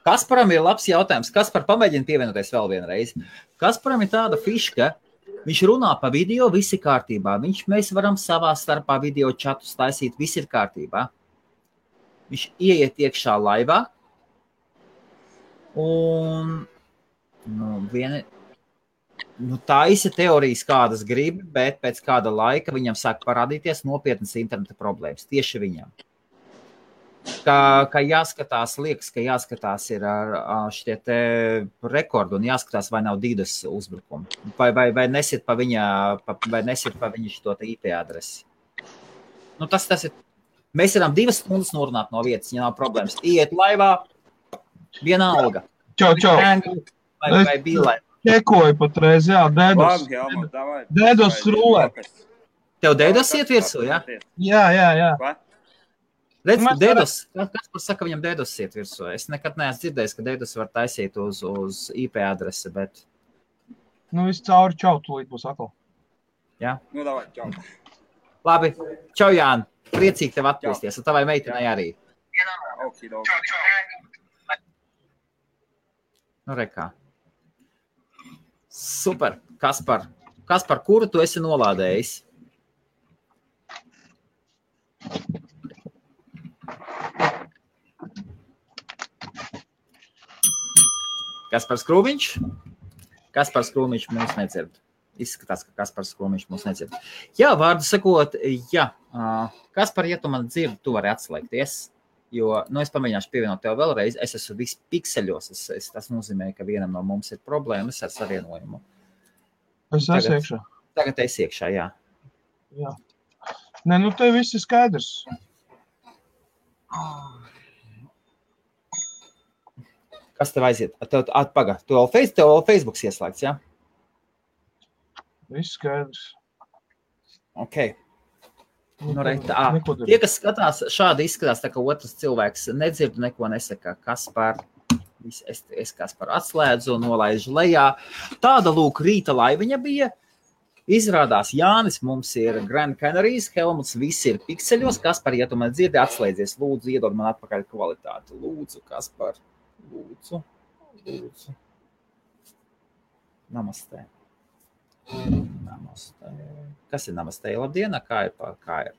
Kasparam ir labs jautājums. Kaspar, pamēģina pievienoties vēl vienreiz. Kasparam ir tāda fiška, viņš runā pa video, visi kārtībā. Mēs varam savā starpā video čatus taisīt, visi ir kārtībā. Viņš ieiet iekšā laivā un taisa teorijas kādas grib, bet pēc kāda laika viņam sāk parādīties nopietnas interneta problēmas. Tieši viņam. Ka jāskatās, liekas, ka jāskatās ir ar šitie te rekordu un jāskatās, vai nav DDoS uzbrukumi. Vai nesit pa viņa šito te IP adresi. Nu, tas ir. Mēs varam 2 stundas norunāt no vietas, ja nav problēmas. Iet laivā, vienalga. Čau. Vai bīlē. Čekoju patreiz, jā, DDoS. DDoS rulē. Tev DDoS iet virsū, jā? Jā. Redz, ka DDoS, kas saka, viņam DDoS iet virsū. Es nekad neesmu dzirdējis, ka DDoS var taisīt uz IP adresi, bet... Nu, viss cauri čau, tūlīt būs atkal. Jā? Nu, davai, čau. Labi, čau, Jāni. Priecīgi tev atpūsties, un tavai meitenei arī. Nu, rekā. Super, Kaspar. Kaspar, kuru tu esi nolādējis? Kaspars Krūmiņš? Kaspars Krūmiņš mūs nedzird. Izskatās, ka Kaspars Krūmiņš mūs nedzird. Jā, vārdu sakot, jā. Kaspar, ja tu man dzirdi, tu vari atslēgties, jo, es pamēģināšu pievienot tev vēlreiz. Es esmu viss pikseļos. Tas nozīmē, ka vienam no mums ir problēmas ar savienojumu. Es esmu iekšā. Tagad es iekšā, jā. Jā. Nē, tev viss ir skaidrs. Kas tev aiziet? Pagad, tev vēl Facebooks ieslēgts, jā? Viss skaidrs. Ok. Tie, kas skatās, šādi izskatās, tā kā otrs cilvēks nedzird, neko nesaka. Kaspar, es Kaspar atslēdzu, nolaižu lejā. Tāda lūk rīta laiviņa bija. Izrādās Jānis, mums ir Grand Canaries, Helmuts, visi ir pikseļos. Kaspar, ja tu man dzirdi, atslēdzies, lūdzu, iedod man atpakaļ kvalitāti. Lūdzu, Kaspar, lūdzu. Namastē. Kas ir namastē? Labdiena, kā ir?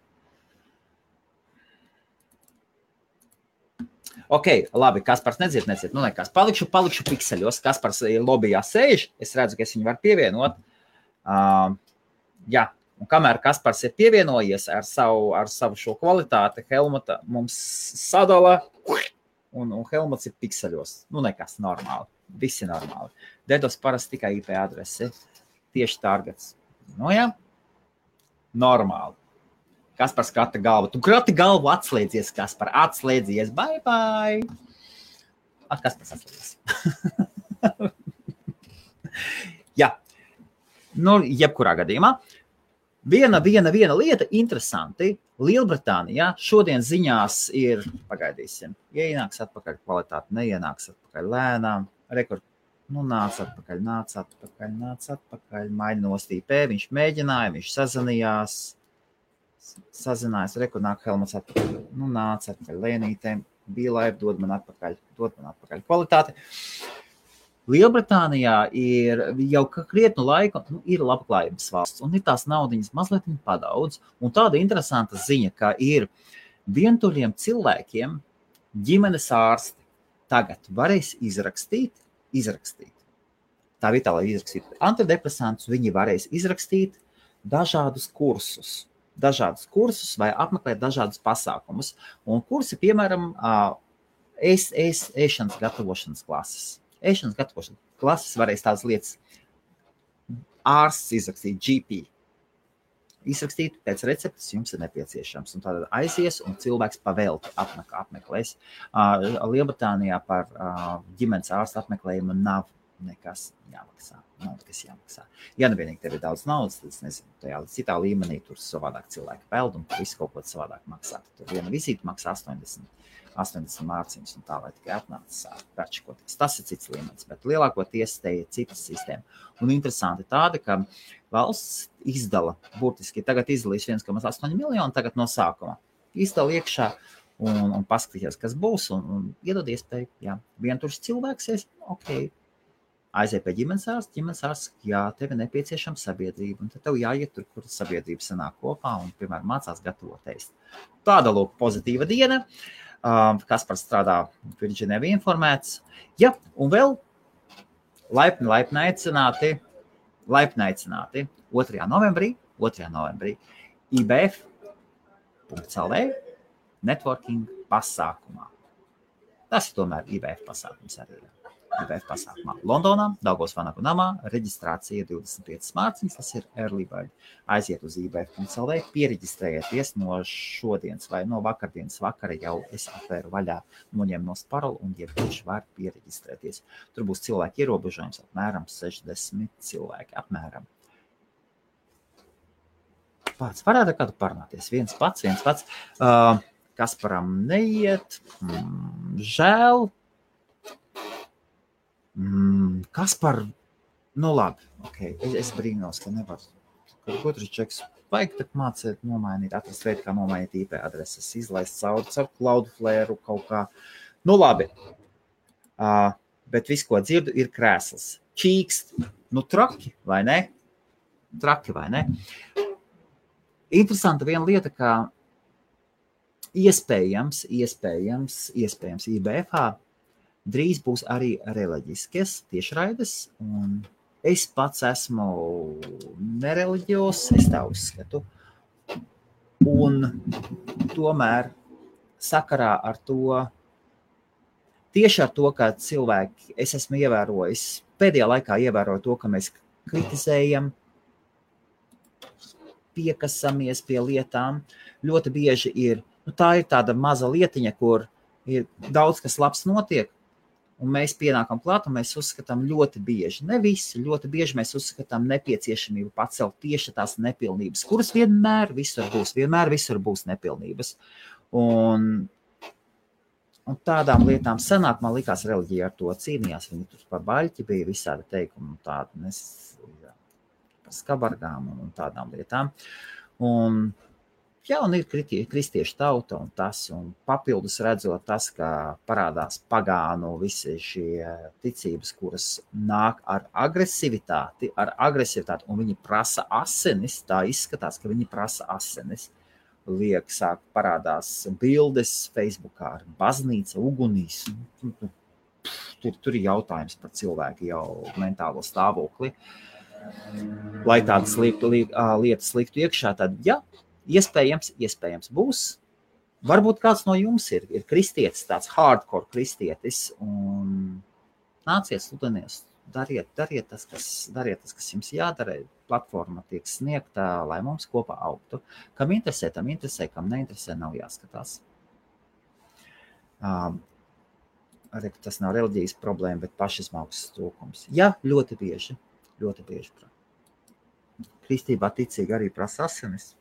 Ok, labi, Kaspars nedzird. Nu, nekas. Palikšu pikseļos. Kaspars lobbyjā sēž. Es redzu, ka es viņu varu pievienot. Jā, un kamēr Kaspars ir pievienojies ar savu šo kvalitāti, Helmuta mums sadala, un Helmuts ir pikseļos. Nu, nekas, normāli. Visi normāli. DDoS parasti tikai IP adresi. Tieši targets. Nu, jā. Normāli. Kaspars krata galvu. Tu krati galvu, atslēdzies, Kaspar. Atslēdzies. Bye. Kaspars atslēdzies. Jā. Nu, jebkurā gadījumā. Viena lieta interesanti. Lielbritānijā šodien ziņās ir, pagaidīsim, ienāks atpakaļ kvalitāti, neienāks atpakaļ lēnām. rekord. Nu, nāc atpakaļ, maini nostīpē, viņš mēģināja, viņš sazinājās, rekord nāk Helmuts atpakaļ. Nu, nāc atpakaļ, Lēnītēm, bija laiva, dod man atpakaļ kvalitāti. Lielbritānijā ir jau krietnu laiku, ir labklājības valsts, un ir tās naudiņas mazliet padaudz, un tāda interesanta ziņa, ka ir vientuļiem cilvēkiem ģimenes ārsti tagad varēs izrakstīt. Tā vietā, lai izrakstītu antidepresantus, viņi varēs izrakstīt dažādus kursus vai apmeklēt dažādus pasākumus. Un kursi, piemēram, ēšanas gatavošanas klases. Ēšanas gatavošanas klases varēs tādas lietas ārsts izrakstīt, GP. Izrakstīt pēc receptes jums ir nepieciešams. Un tad aizies un cilvēks pavelti apmeklēs. Lielbritānijā par ģimenes ārsta apmeklējumu nav nekas jāmaksā. Ja nevienīgi tev ir daudz naudas, tad es nezinu, tajā citā līmenī tur savādāk cilvēki peld un visu kaut ko savādāk maksā. Tur viena vizīte maksā 80 mārciņas un tā, lai tikai atnāca pērčikoties. Tas ir cits līmenis, bet lielākoties te ir citas sistēma. Un interesanti tāda, ka valsts izdala, burtiski tagad izdalīs 1,8 miljonu tagad no sākuma. Izdala iekšā un paskatījās, kas būs un iedod iespēju, jā, vientuļš cilvēks, ok, aiziet pie ģimenes ārsts, jā, tev ir nepieciešama sabiedrība, un tad tev jāiet tur, kur sabiedrība sanāk kopā un, piemēram, mācās gatavot ēst. Tāda, lūk, pozitīva diena. Kaspars strādā Virģinē informēts. Ja, un vēl laipni aicināti 2. novembrī IBF.CLV networking pasākumā. Tas ir tomēr IBF pasākums arī. IBF pasākumā Londonā, Daugavas Vanagu namā, reģistrācija 25 mārciņas, tas ir early bird. Aiziet uz IBF.CLV, piereģistrējieties no šodienas vai no vakardienas vakara jau es atvēru vaļā, noņem nost paroli un jebkurš var piereģistrēties. Tur būs cilvēki ierobežojums, apmēram 60 cilvēki, apmēram. Pats varētu kādu parunāties, viens pats. Kasparam neiet, žēl. Kaspar, nu labi, okay. Es brīnos, ka nevar. Otrs čeks, vajag tak mācēt, nomainīt, atrast veidu, kā nomainīt IP adreses, izlaist caur Cloudflare kaut kā. Nu labi, bet viss, ko dzirdu, ir krēsls. Čīkst, nu traki, vai ne? Interesanta viena lieta, ka iespējams IBFā drīz būs arī reliģiskas tiešraides, un es pats esmu nereliģios, es tā uzskatu. Un tomēr sakarā ar to, tieši ar to, ka cilvēki, es esmu ievērojis, pēdējā laikā ievēroju to, ka mēs kritizējam, piekasamies pie lietām. Ļoti bieži ir, tā ir tāda maza lietiņa, kur ir daudz, kas labs notiek, un mēs pienākam klāt, un mēs uzskatām ļoti bieži, ne visi, ļoti bieži mēs uzskatām nepieciešamību pacelt tieši tās nepilnības, kuras vienmēr visur būs nepilnības. Un tādām lietām senāk, man likās, reliģija ar to cīnījās, viņi tur par baļķi bija visādi teikumi, tādi par skabargām un tādām lietām. Un ir kristiešu tauta un tas, un papildus redzot tas, ka parādās pagānu visi šie ticības, kuras nāk ar agresivitāti, un viņi prasa asinis, tā izskatās, ka viņi prasa asinis. Sāk parādās bildes Facebookā ar baznīca, ugunīs. Tur ir jautājums par cilvēku jau mentālo stāvokli. Lai tādas lietas liktu iekšā, tad iespējams būs. Varbūt kāds no jums ir kristietis, tāds hardcore kristietis, un nāciet, sludinies, dariet tas, kas jums jādara. Platforma tiek sniegta, lai mums kopā augtu. Kam interesē, tam interesē, kam neinteresē, nav jāskatās. Tas nav reliģijas problēma, bet pašizmauksmes trūkums. Jā, ļoti bieži. Kristībā ticīgi arī prasa asinis.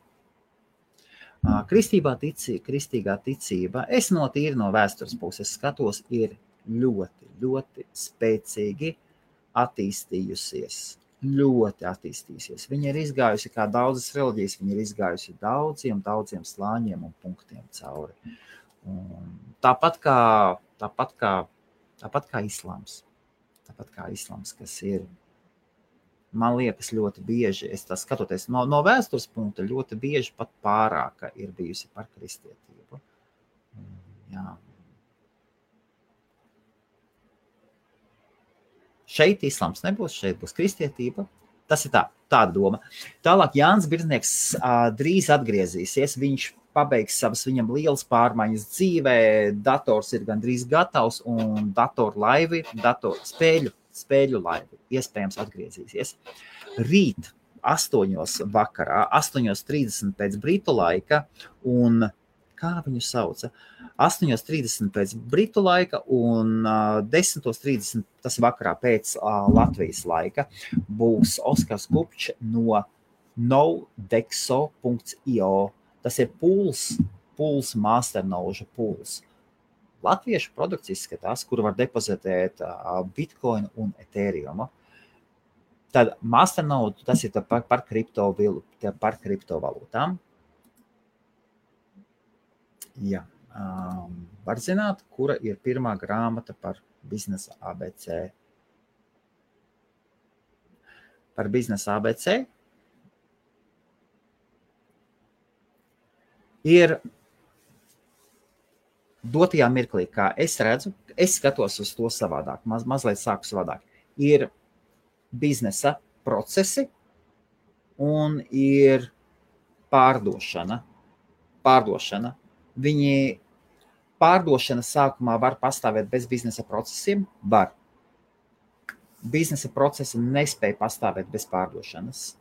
Kristīgā ticība, es tīri no vēstures puses skatos, ir ļoti, ļoti spēcīgi attīstījusies. Ļoti attīstījusies. Viņa ir izgājusi, kā daudzas reliģijas, viņa ir izgājusi daudziem slāņiem un punktiem cauri. Un tāpat kā islāms. Tāpat kā islāms, kas ir, man liekas, ļoti bieži, es tā skatoties no vēstures punkta, ļoti bieži pat pārāka ir bijusi par kristietību. Jā. Šeit islāms nebūs, šeit būs kristietība. Tas ir tāda doma. Tālāk Jānis Birznieks drīz atgriezīsies. Viņš pabeigs savas viņam lielas pārmaiņas dzīvē. Dators ir gandrīz gatavs un spēļu laivi iespējams atgriezīsies. Rīt 8 vakarā, 8:30 pēc britu laika un kā viņu sauca? 8:30 pēc britu laika un 10:30 tas vakarā pēc Latvijas laika būs Oskars Kupčs no nodexo.io. Tas ir pools masternoža pools. Latviešu produkts izskatās, kur var depozitēt Bitcoin un Ethereum. Tad masternode, tas ir par kriptovalūtām. Jā. Var zināt, kura ir pirmā grāmata par biznesa ABC. Par biznesa ABC ir dotajā mirklī, kā es redzu, es skatos uz to savādāk, mazliet sāku savādāk. Ir biznesa procesi un ir pārdošana. Pārdošana sākumā var pastāvēt bez biznesa procesiem? Var. Biznesa procesi nespēja pastāvēt bez pārdošanas.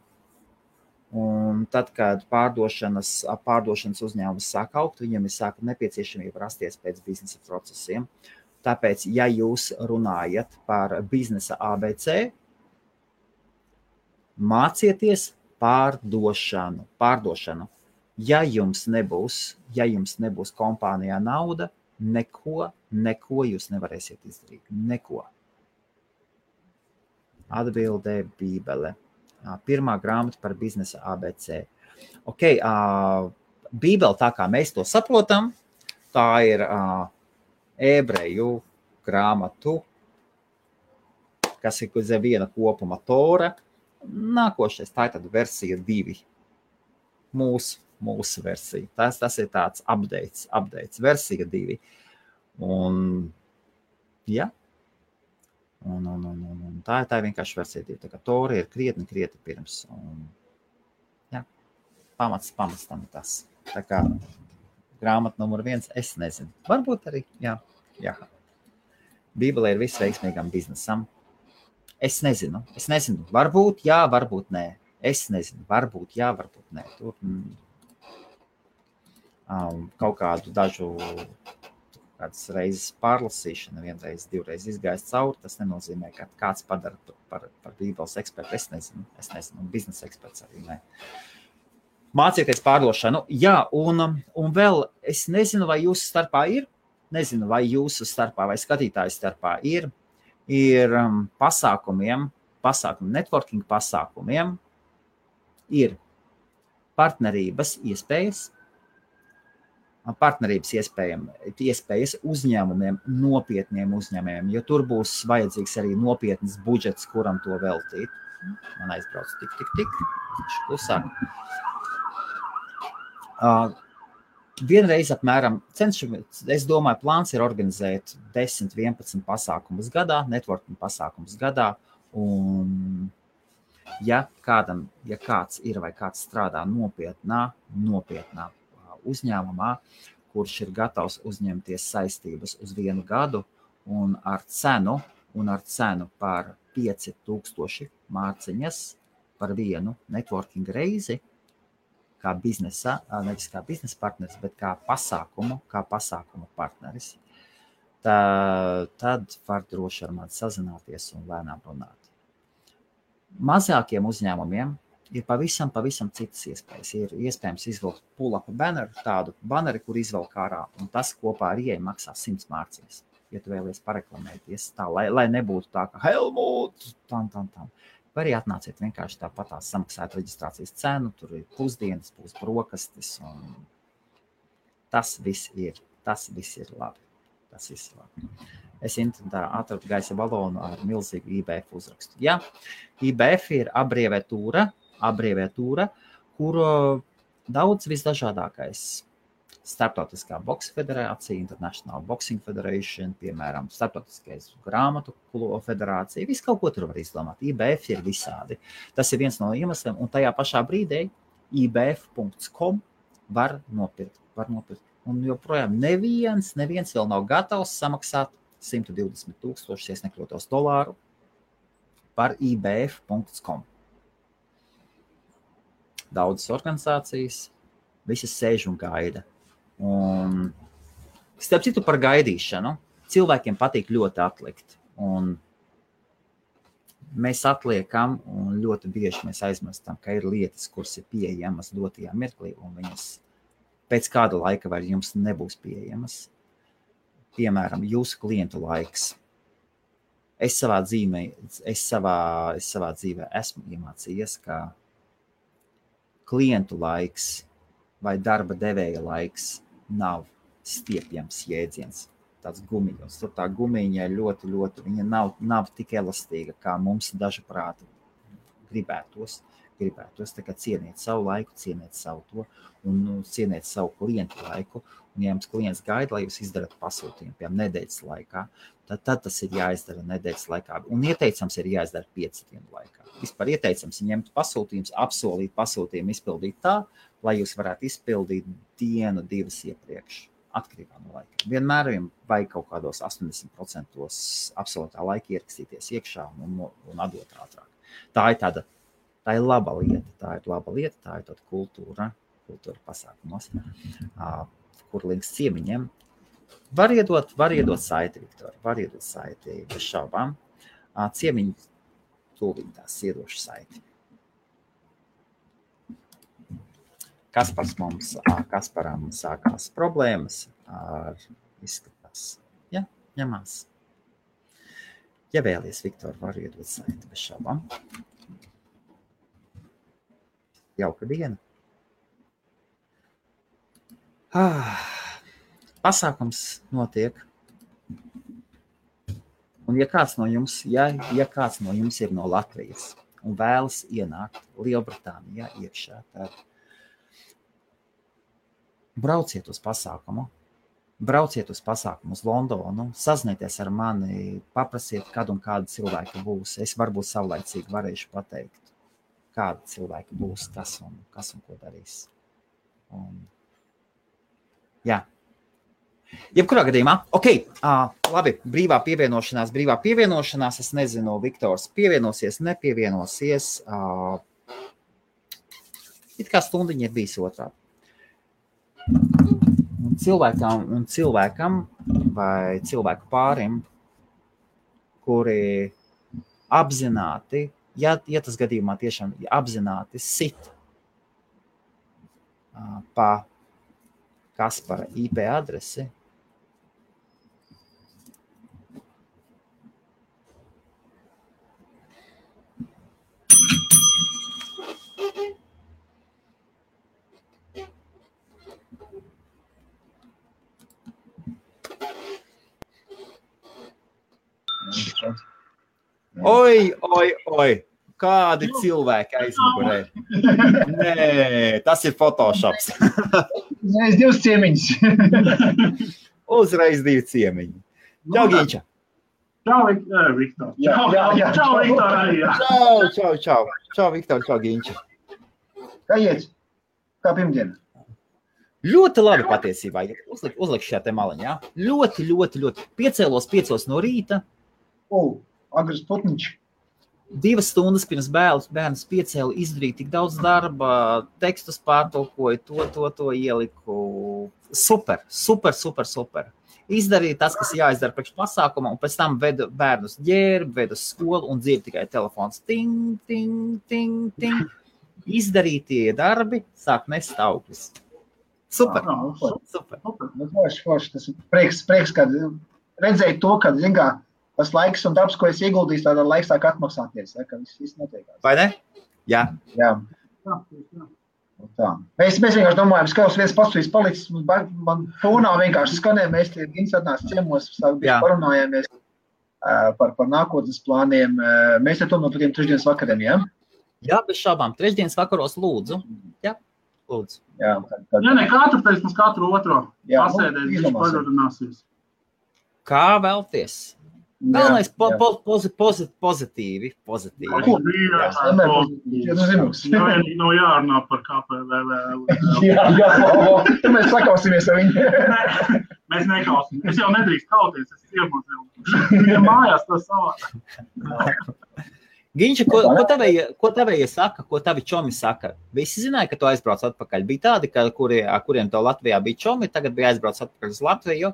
Un tad, kad pārdošanas uzņēmums sāk augt, viņam ir sāka nepieciešamība rasties pēc biznesa procesiem. Tāpēc, ja jūs runājat par biznesa ABC, mācieties pārdošanu. Ja jums nebūs kompānijā nauda, neko jūs nevarēsiet izdarīt. Neko. Atbildē Bībele. Pirmā grāmata par biznesa ABC. Bībele, tā kā mēs to saprotam, tā ir ebreju grāmatu, kas ir uz viena kopuma Tora. Nākošais, tā ir tad versija 2. Mūsu versija. Tas ir tāds updates, versija 2. Un, jā. Un tā ir vienkārši versija 2. Tā kā Tora ir krietni pirms. Un, jā, pamats tam tas. Tā kā grāmata numur 1, es nezinu. Varbūt arī, jā. Bībelē ir viss veiksmīgam biznesam. Es nezinu. Varbūt jā, varbūt nē. Es nezinu, varbūt jā, varbūt nē. Tur kaut kādu kādas reizes pārlasīšana, vienreiz, divreiz izgājis cauri, tas nenozīmē, ka kāds padara par Bībeles ekspertu. Es nezinu, un biznesa eksperts arī nē. Mācieties pārdošanu. Jā, un vēl es nezinu, vai jūsu starpā ir, vai skatītāju starpā ir pasākumiem, networking pasākumiem, ir partnerības iespējas uzņēmumiem, nopietniem uzņēmējiem, jo tur būs vajadzīgs arī nopietns budžets, kuram to veltīt. Man aizbrauc tik. Klusāk. Vienreiz apmēram es domāju, plāns ir organizēt 10-11 pasākumus gadā, networking pasākumus gadā, un ja kāds ir vai kāds strādā nopietnā uzņēmumā, kurš ir gatavs uzņemties saistības uz 1 gadu un ar cenu par 5000 mārciņas par vienu networking reizi, nevis kā biznesa partneris, bet kā pasākumu partneris, tad var droši ar mani sazināties un lēnām runāt. Mazākiem uzņēmumiem ir pavisam citas iespējas. Ir iespējams izvilkt pull-up banneru, tādu banneri, kur izvelk ārā, un tas kopā ar ieeju maksā 100 mārciņas. ja tu vēlies pareklamēties tā, lai nebūtu tā, ka Helmut, tam. Vai arī atnāciet vienkārši tāpatās samaksāt reģistrācijas cenu, tur ir pusdienas, būs brokastis, un tas viss ir labi. Tas viss ir labi. Es internetā atradu gaisa balonu ar milzīgu IBF uzrakstu. Jā, IBF ir abreviatūra, kur daudz visdažādākais Starptautiskā boksa federācija, International Boxing Federation, piemēram, Starptautiskais grāmatu federācija, visu kaut ko tur var izdomāt. IBF ir visādi. Tas ir viens no iemesliem, un tajā pašā brīdī ibf.com var nopirkt. Un joprojām neviens vēl nav gatavs samaksāt 120,000, ja nekļūtos dolāru par ibf.com. Daudzas organizācijas, visas sēž un gaida. Un starp citu par gaidīšanu, cilvēkiem patīk ļoti atlikt. Un mēs atliekam, un ļoti bieži mēs aizmirstam, ka ir lietas, kuras ir pieejamas dotajā mirklī, un viņas pēc kāda laika vairs jums nebūs pieejamas. Piemēram, jūsu klientu laiks. Es savā dzīvē esmu iemācījies, ka klientu laiks vai darba devēja laiks nav stiepjams jēdziens. Tāds gumiņos. Tur tā gumiņa ļoti, viņa nav tik elastīga, kā mums dažuprāt gribētos. Tā kā cieniet savu laiku, cieniet savu to un cieniet savu klientu laiku. Un ja jums klients gaida, lai jūs izdarat pasūtījumu, piemēram, nedēļas laikā, tad tas ir jāizdara nedēļas laikā. Un ieteicams ir jāizdara 5 dienu laikā. Vispār ieteicams ir ņemt pasūtījums, apsolīt pasūtījumu, izpildīt tā, lai jūs varētu izpildīt 1-2 iepriekš, atkarībā no laika. Vienmēr vajag kaut kādos 80% absolūtā laika ierakstīties iekšā un atdot ātrāk. Tā ir laba lieta, tā ir tāda kultūra pasākumos, kur links ciemiņiem. Var iedot saiti, Viktor, var iedot saiti bez šaubām. Ciemiņi tūlīt tās iedošu saiti. Kasparam sākās problēmas ar izskatās. Ja, ņemās. Ja vēlies, Viktor, var iedot saiti bez šaubām. Jauka diena. Pasākums notiek. Un ja kāds no jums ir no Latvijas un vēlas ienākt Lielbritānijā iekšā, tad brauciet uz pasākumu uz Londonu, sazināties ar mani, paprasiet, kad un kāda cilvēka būs. Es varbūt savlaicīgi varēšu pateikt, kāda cilvēka būs, kas un ko darīs. Jā. Jebkurā gadījumā, labi, brīvā pievienošanās, es nezinu, Viktors pievienosies, nepievienosies, it kā stundiņa ir bijis otrādi. Un cilvēkam vai cilvēku pārim, kuri apzināti, ja tas gadījumā tiešām apzināti sit pa Kaspara IP adresi, Oi, kādi cilvēki aizmugurē. Nē, tas ir Photoshops. Uzreiz 2 ciemiņus. Uzreiz 2 ciemiņi. Čau, Ginča. Čau, Viktor. Čau, Viktor arī. Čau, Viktor, čau, Ginča. Kā iet? Kā pirmdiena? Ļoti labi patiesībā. Uzlikšu šajā te maliņā. Ļoti. Piecēlos 5 no rīta. Agrs putniņš. 2 stundas pirms bērns piecēlu, izdarīju tik daudz darba, tekstus pārtulkoju, to ieliku. Super. Izdarīju tas, kas jāizdara priekš pasākuma, un pēc tam vedu bērnus ģērbu, vedu skolu un dzirdu tikai telefons. Ting, ting, ting, ting. Izdarītie darbi sāk nest augļus. Super. Forši. Tas ir prieks, kad redzēju to, ka, zin kā, tas laiks un darbs, ko es ieguldīju, tādā laiks sāk atmaksāties, ka viss notiekās. Vai ne? Jā. Tā. Mēs vienkārši domājam, ka kaut viens pats palicis, man fonā vienkārši skanē, mēs tie Gins atnāc ciemos, parunājāmies par nākotnes plāniem. Mēs te tomēr par tiem trešdienas vakariem, jā? Jā, bez šābām. Trešdienas vakaros lūdzu. Jā, lūdzu. Jā, ne katru pēc mums katru otro pasēdēs, viņš pagodināsies. Kā vēlties? Galvenais pozitīvi. Nav jārunā par KPVV. Jā, mēs sakausimies ar viņu. Mēs nekausim. Es jau nedrīkst kauties, es ciemos jau. Viņam mājās tas savā. Ginča, ko tavējie saka, ko tavi čomi saka? Visi zināja, ka tu aizbrauc atpakaļ. Bija tādi, kuriem tev Latvijā bija čomi, tagad bija aizbrauc atpakaļ uz Latviju,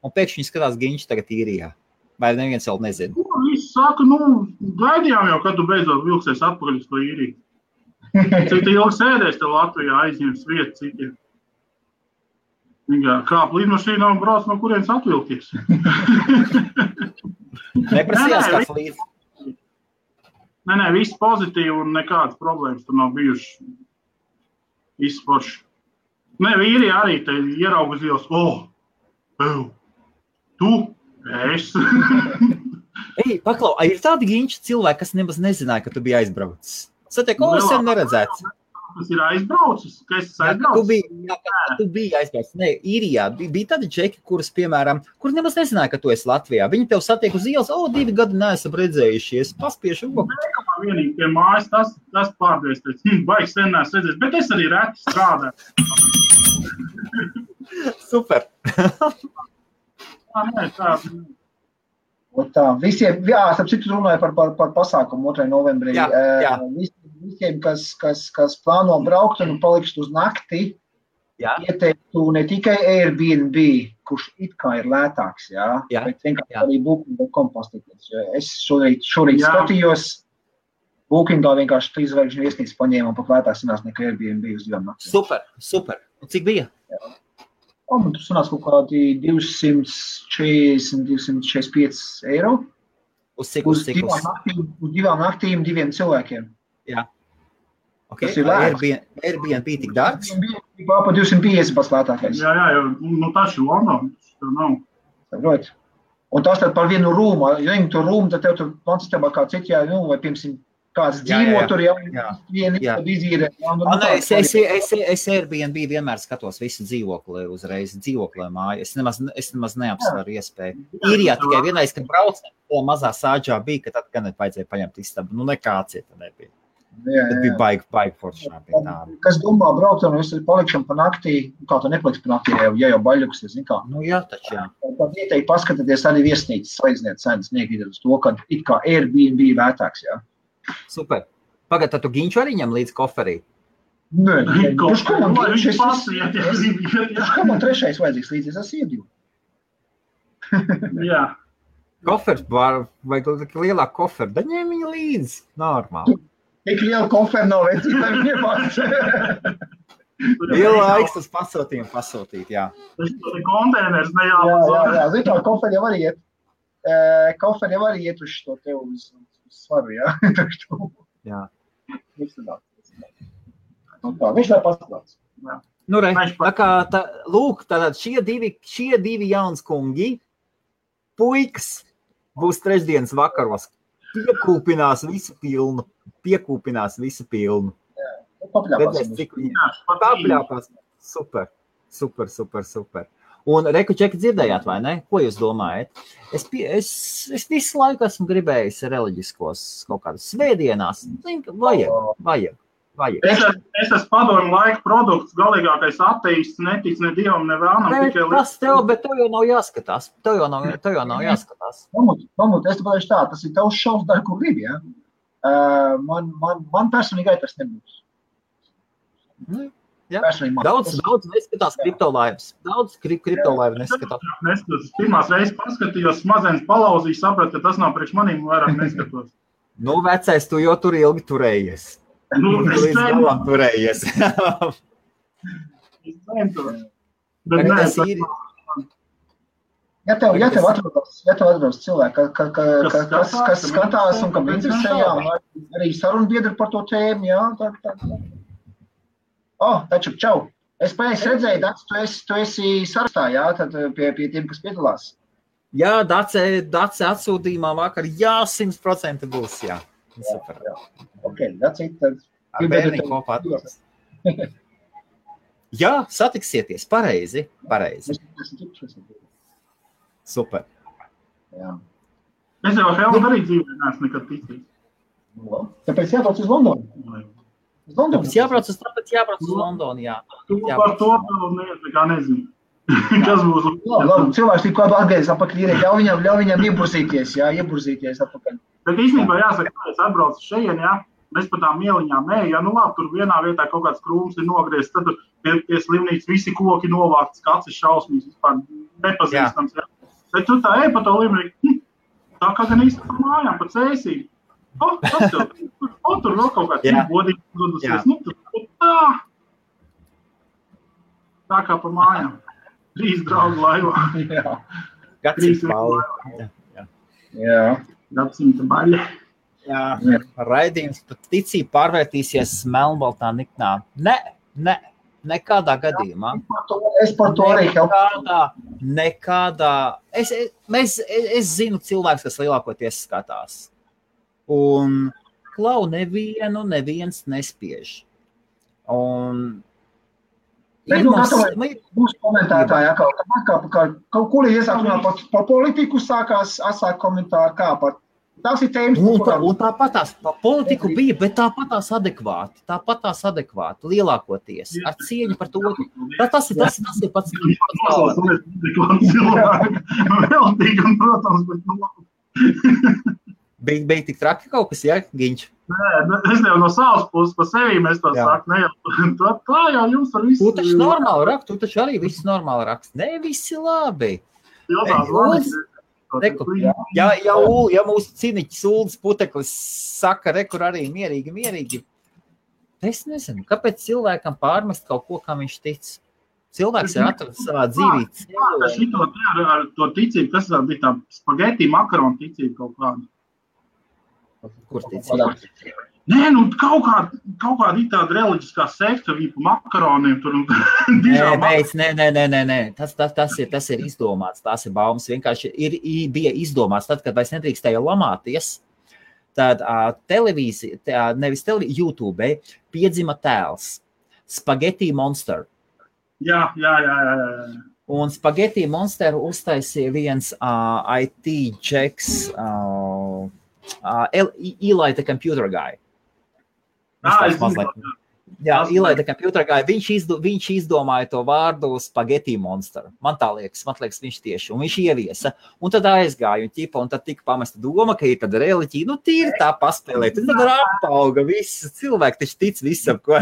un pēkšņi skatās Ginča tagad īrijā. Vai neviens vēl nezina? Visi saka, gaidījām jau, kad tu beidzot vilksies atpakaļ uz to īriju. Cik ilgi sēdēs te Latvijā, aizņems vietu citiem. Kāp līdmašīnā un brauc, no kurienes atvilties. Neprasījās kāds līdz? Nē, viss pozitīvi un nekādas problēmas tur nav bijuši. Viss forši. Vīri arī te ierauga uz ielas. Tu? Es. Ej, paklau, ir tādi Ginča cilvēki, kas nemaz nezināja, ka tu biji aizbraucis. Satiek, sen neredzēts. Tas ir aizbraucis? Ka es aizbraucis? Tu biji aizbraucis. Nē, īrijā bija tādi džeki, kurus, piemēram, kur nemaz nezināja, ka tu esi Latvijā. Viņi tev satiek uz ielas, 2 gadi neesam redzējušies, paspiešu. Nē, vienīgi pie mājas, tas pārdēs, baigi sen neesam redzējis, bet es arī reti strādāju. Super. Tā, visiem, starp citu runāju par pasākumu 2. novembrī. Visiem, kas plāno braukt un palikt uz nakti, ieteiktu ne tikai Airbnb, kurš it kā ir lētāks, bet vienkārši arī Booking.com pastīties. Es šorīt skatījos, Bookingā vienkārši 3 zvaigžņu viesnīcu paņēmu un pat lētāks sanās nekā Airbnb uz 2 naktī. Super. Un cik bija? Man tur sanās kaut kādi 240, 245 eiro. Uz cik? Uz 2 naktīm, 2 cilvēkiem. Jā. Okay. Tas ir lēts. Airbnb tik dārgs? Airbnb pa 250 pats lētākais. Jā, tas ir London, tas nav. Saprot. Un tas tad par vienu rūmu, ja viņi to rūmu, tad tev tur pansistabā kā citi, vai piemēram, kāds dzīvo tur, vieni izīrē. Es Airbnb vienmēr skatos visu dzīvokli uzreiz, dzīvoklē māju. Es nemaz neapsvaru iespēju. Īrijā tikai vienreiz, kad brauc, to mazā sāģā bija, ka tad gan vajadzēja paņemt istabu. Nekā cieta nebija. Bet bija baigi foršā pie tā. Kas domā braukt, un es palikšam pa naktī, kā tu nepaliks pa naktī, ja jau baļļuksies, zin kā? Jā, taču jā. Tad ieteikti paskatāties arī viesnīcas, salīdziniet cenas, negrīdat uz to, ka it kā Airbnb lētāks, jā. Super. Pagad, tad tu Ginču arī ņem līdz koferī? Nē, kurš kā man trešais vajadzīgs līdzi, es esmu iedīvu. Jā. Kofers, vai lielāk koferu, da ņem viņu līdzi, normāli. Tik liela koferu nav vecīgi, lai viņi iepāc. Liela laiks tas pasūtīt, jā. Tas ir konteiners, ne jālūdz. Jā, zin kā, koferi jau arī iet uz šo tev uz svaru, jā. Jā. Viņš tā paskatās. Nu, lūk, tātad šie divi jauns kungi, puikas, būs trešdienas vakaros. Piekūpinās visu pilnu. Papļāpās. Super. Un Reku Čeki dzirdējāt, vai ne? Ko jūs domājat? Es visu laiku esmu gribējis reliģiskos kaut kādas svētdienās. Vajag. Es esmu padomu laiku produkts, galīgākais ateists, netic ne dievam, ne vēlnam. Bet tev jau nav jāskatās. Mamut, es tev pateikšu tā, tas ir tavs šovs, dar, kur gribi, jā? Man personīgai tas nebūs. Jā. Daudz neskatās kriptolaivas. Daudz kriptolaivu neskatās. Pirmās reizes paskatījos, smadzenes palauzīju, sapratu, ka tas nav priekš manīm, vairāk neskatos. Nu, vecais, tu jau tur ilgi turējies. Tu līdz galam turējies. Ja tev atbrauc cilvēki, kas skatās un kam interesē, jā, un arī sarunbiedri par to tēmu, jā, taču, čau. Es pēc redzēju, Daci, tu esi sarakstā, jā, tad pie tiem, kas piedalās. Jā, Daci atsūtījumā vakar, jā, 100% būs, jā. Super. Jā. Ok, Daci, tad... Ar bērni kopā atbrauc. Jā, satiksieties, pareizi. Super. Jā. Es jau Helmu arī dzīvē neesmu nekad ticījis. Tāpēc jābrauc uz Londonu. Tāpēc jābrauc uz Londonu, jā. Par to vēl nekā nezinu. Kas būs? Labi, cilvēks tik kādu atgriezis apakaļ, ļauj viņam ieburzīties apakaļ. Bet īstenībā jāsaka, ka es atbraucu šeit, jā. Mēs pa tām ieliņām ejam, ja labi, tur vienā vietā kaut kāds krūms ir nogriezts, tad pie slimnīcas visi koki novākts, kāds ir šausmīgs, vispār nepazīstams. Ja. Bet tu tā ej pa to līmenī, tā kā gan īsti par mājām, pa cēsīm. Tas tev, tur vēl kaut kāds godīgi dodusies. Tā kā pa mājām. 3 draugu laivā. Gadsimta baļa. Jā. Gadsimta baļa. Jā, raidījums pat ticība pārvērtīsies melnbaltā niknā. Nekādā gadījumā. Es par to arī nekādā. Es zinu cilvēks, kas lielākoties skatās. Un klau neviens nespiež. Un Būs komentētāji, kaut kur iesākumā par politiku sākās asāk komentāri, kā par tās ir tēmas. Un tāpatās par politiku bija, bet tāpatās adekvāti, lielākoties, ar cieņu par to. Tas ir pats galvenais. Veltīgi, un, protams, bet Bija tik traki kaut kas, ja, Giņš? Nē, es jau no savas puses pa sevi mēs to saku, ne jau, tā jau jums ar visu. Tu taču normāli rakst, tu taču arī viss normāli rakst. Ne, visi labi. Ja mūsu ciniķis Uldis Puteklis saka, rekur arī mierīgi. Es nezinu, kāpēc cilvēkam pārmest kaut ko, kā viņš tic. Cilvēks ir atradis savā dzīvī. Ar to ticību, kas bija tā spageti makaronu ticība kaut kāda. Kur ticība? Nē, kaut kāda ir tāda reliģiskā sekta, viņa pa makaroniem tur un Nē. Tas ir izdomāts, tās ir baumas. Vienkārši bija izdomāts tad, kad vairs nedrīkstēja lamāties, tad televīzija, nevis televīzija, YouTube piedzima tēls Spaghetti Monster. Jā. Un Spaghetti Monster uztaisīja viens IT džeks, Eli the Computer Guy. Eli the Computer Guy. Viņš izdomāja to vārdu Spaghetti Monster. Man liekas, viņš tieši. Un viņš ieviesa. Un tad aizgāja un tad tika pamesta doma, ka ir tad reliģija. Tīri tā paspēlēt. Tad ar apauga viss. Cilvēki taču tic visam, ko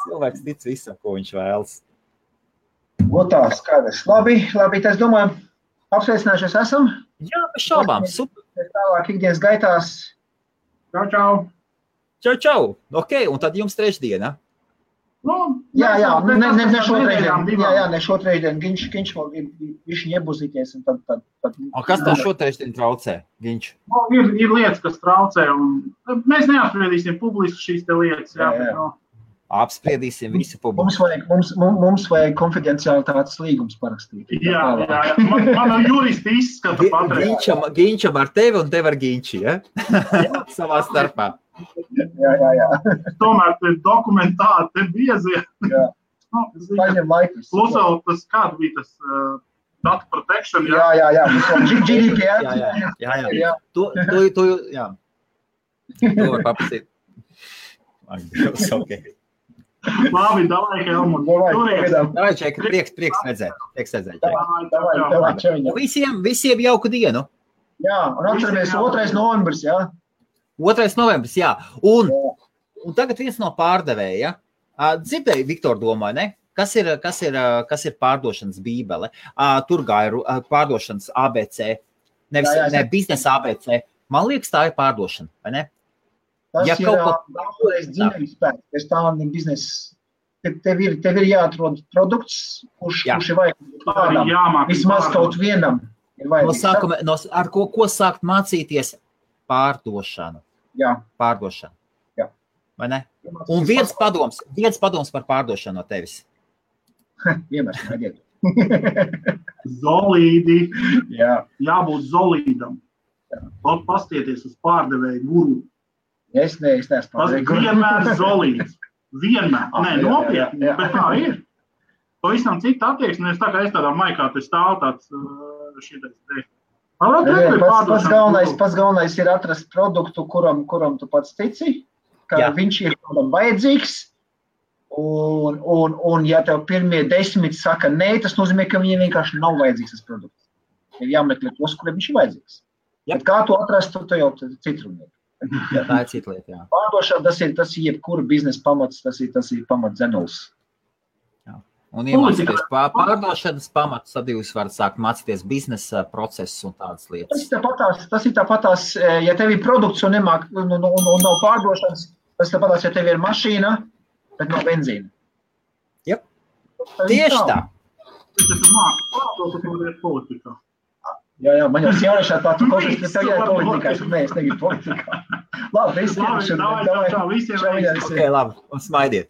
Cilvēks tic visam, ko viņš vēlas. Tā, skaidrs. Labi, tas domājam, apsveicinājušies esam. Jā, bez šaubām, super. Tālāk ikdienas gaitās. Čau. Ok, un tad jums trešdiena. Jā, ne šotrešdien. Viņš iebuzīties. Kas tev šotrešdien traucē, Giņš? Ir lietas, kas traucē. Mēs neapspriedīsim publiski šīs te lietas. Jā. Apspriedīsim visu publiku. Mums vajag konfidencialitātes līgums parakstīt. Jā. Man juristi izskata patreiz. Giņčam ar tevi un tev ar Giņči, ja? Savā starpā. Jā. Tomēr te dokumentāti, te biezie. Jā. Paņem laikus. Plus vēl tas, kāda bija tas data protection, jā. GDPR. Jā. Tu var paprasīt. Ok. Labi, davai, Helmut. Davai, Čeka, prieks redzēt. Visiem jauku dienu. Jā, un atceramies 2. novembris, jā. 2. novembris, jā. Un tagad viens no pārdevēja. Dzirdēju, Viktor domāju, ne? Kas ir pārdošanas bībele? Tur gāja pārdošanas ABC. Ne biznesa ABC. Man liekas, tā ir pārdošana, vai ne? Tas ir daudzreiz dzīvības spēks, pēc tā ir biznesa tev ir jāatrod produkts, kurš ir vajadzīgs kādam. Vismaz kaut vienam ir vajadzīgs. Ar ko sākt mācīties? Pārdošanu. Jā. Pārdošanu. Jā. Vai ne? Un viens padoms par pārdošanu no tevis. Vienmēr smaidiet. Zolīdi. Jā. Jābūt zolīdam. Pastieties uz pārdevēju guru. Es neesmu pārdevēju guru. Vienmēr zolīds. Vienmēr. Nē, nopietni, bet tā ir. Pavisam cita attieksme, es tā kā es tādā maikā te stāv tāds šitais te. Pats galvenais ir atrast produktu, kuram tu pats tici, ka viņš ir kādam vajadzīgs. Un ja tev pirmie 10 saka nē, tas nozīmē, ka viņiem vienkārši nav vajadzīgs tas produkts. Ir jāmeklē tos, kuriem viņš ir vajadzīgs. Bet kā to atrast, tu jau citrunieki. Jā, tā ir cita lieta, jā. Pārdošana, tas ir jebkura biznesa pamats, tas ir pamats dzenuls. Jā. Un iemācīties pārdošanas pamatus, tad jūs varat sākt mācīties biznesa procesus un tādas lietas. Tas ir tāpatās, ja tev ir produkts un nav pārdošanas, tas ir tāpatās, ja tev ir mašīna, bet nav benzīna. Jep, tieši tā. Tas ir māki pārdot, ka tu ir politikā. Jā, man jau jauniešā tā, tu košies, bet tev jāir politikā, nē, es negribu politikā. Labi, Labi, visiem. Ok, labi, un smaidiet.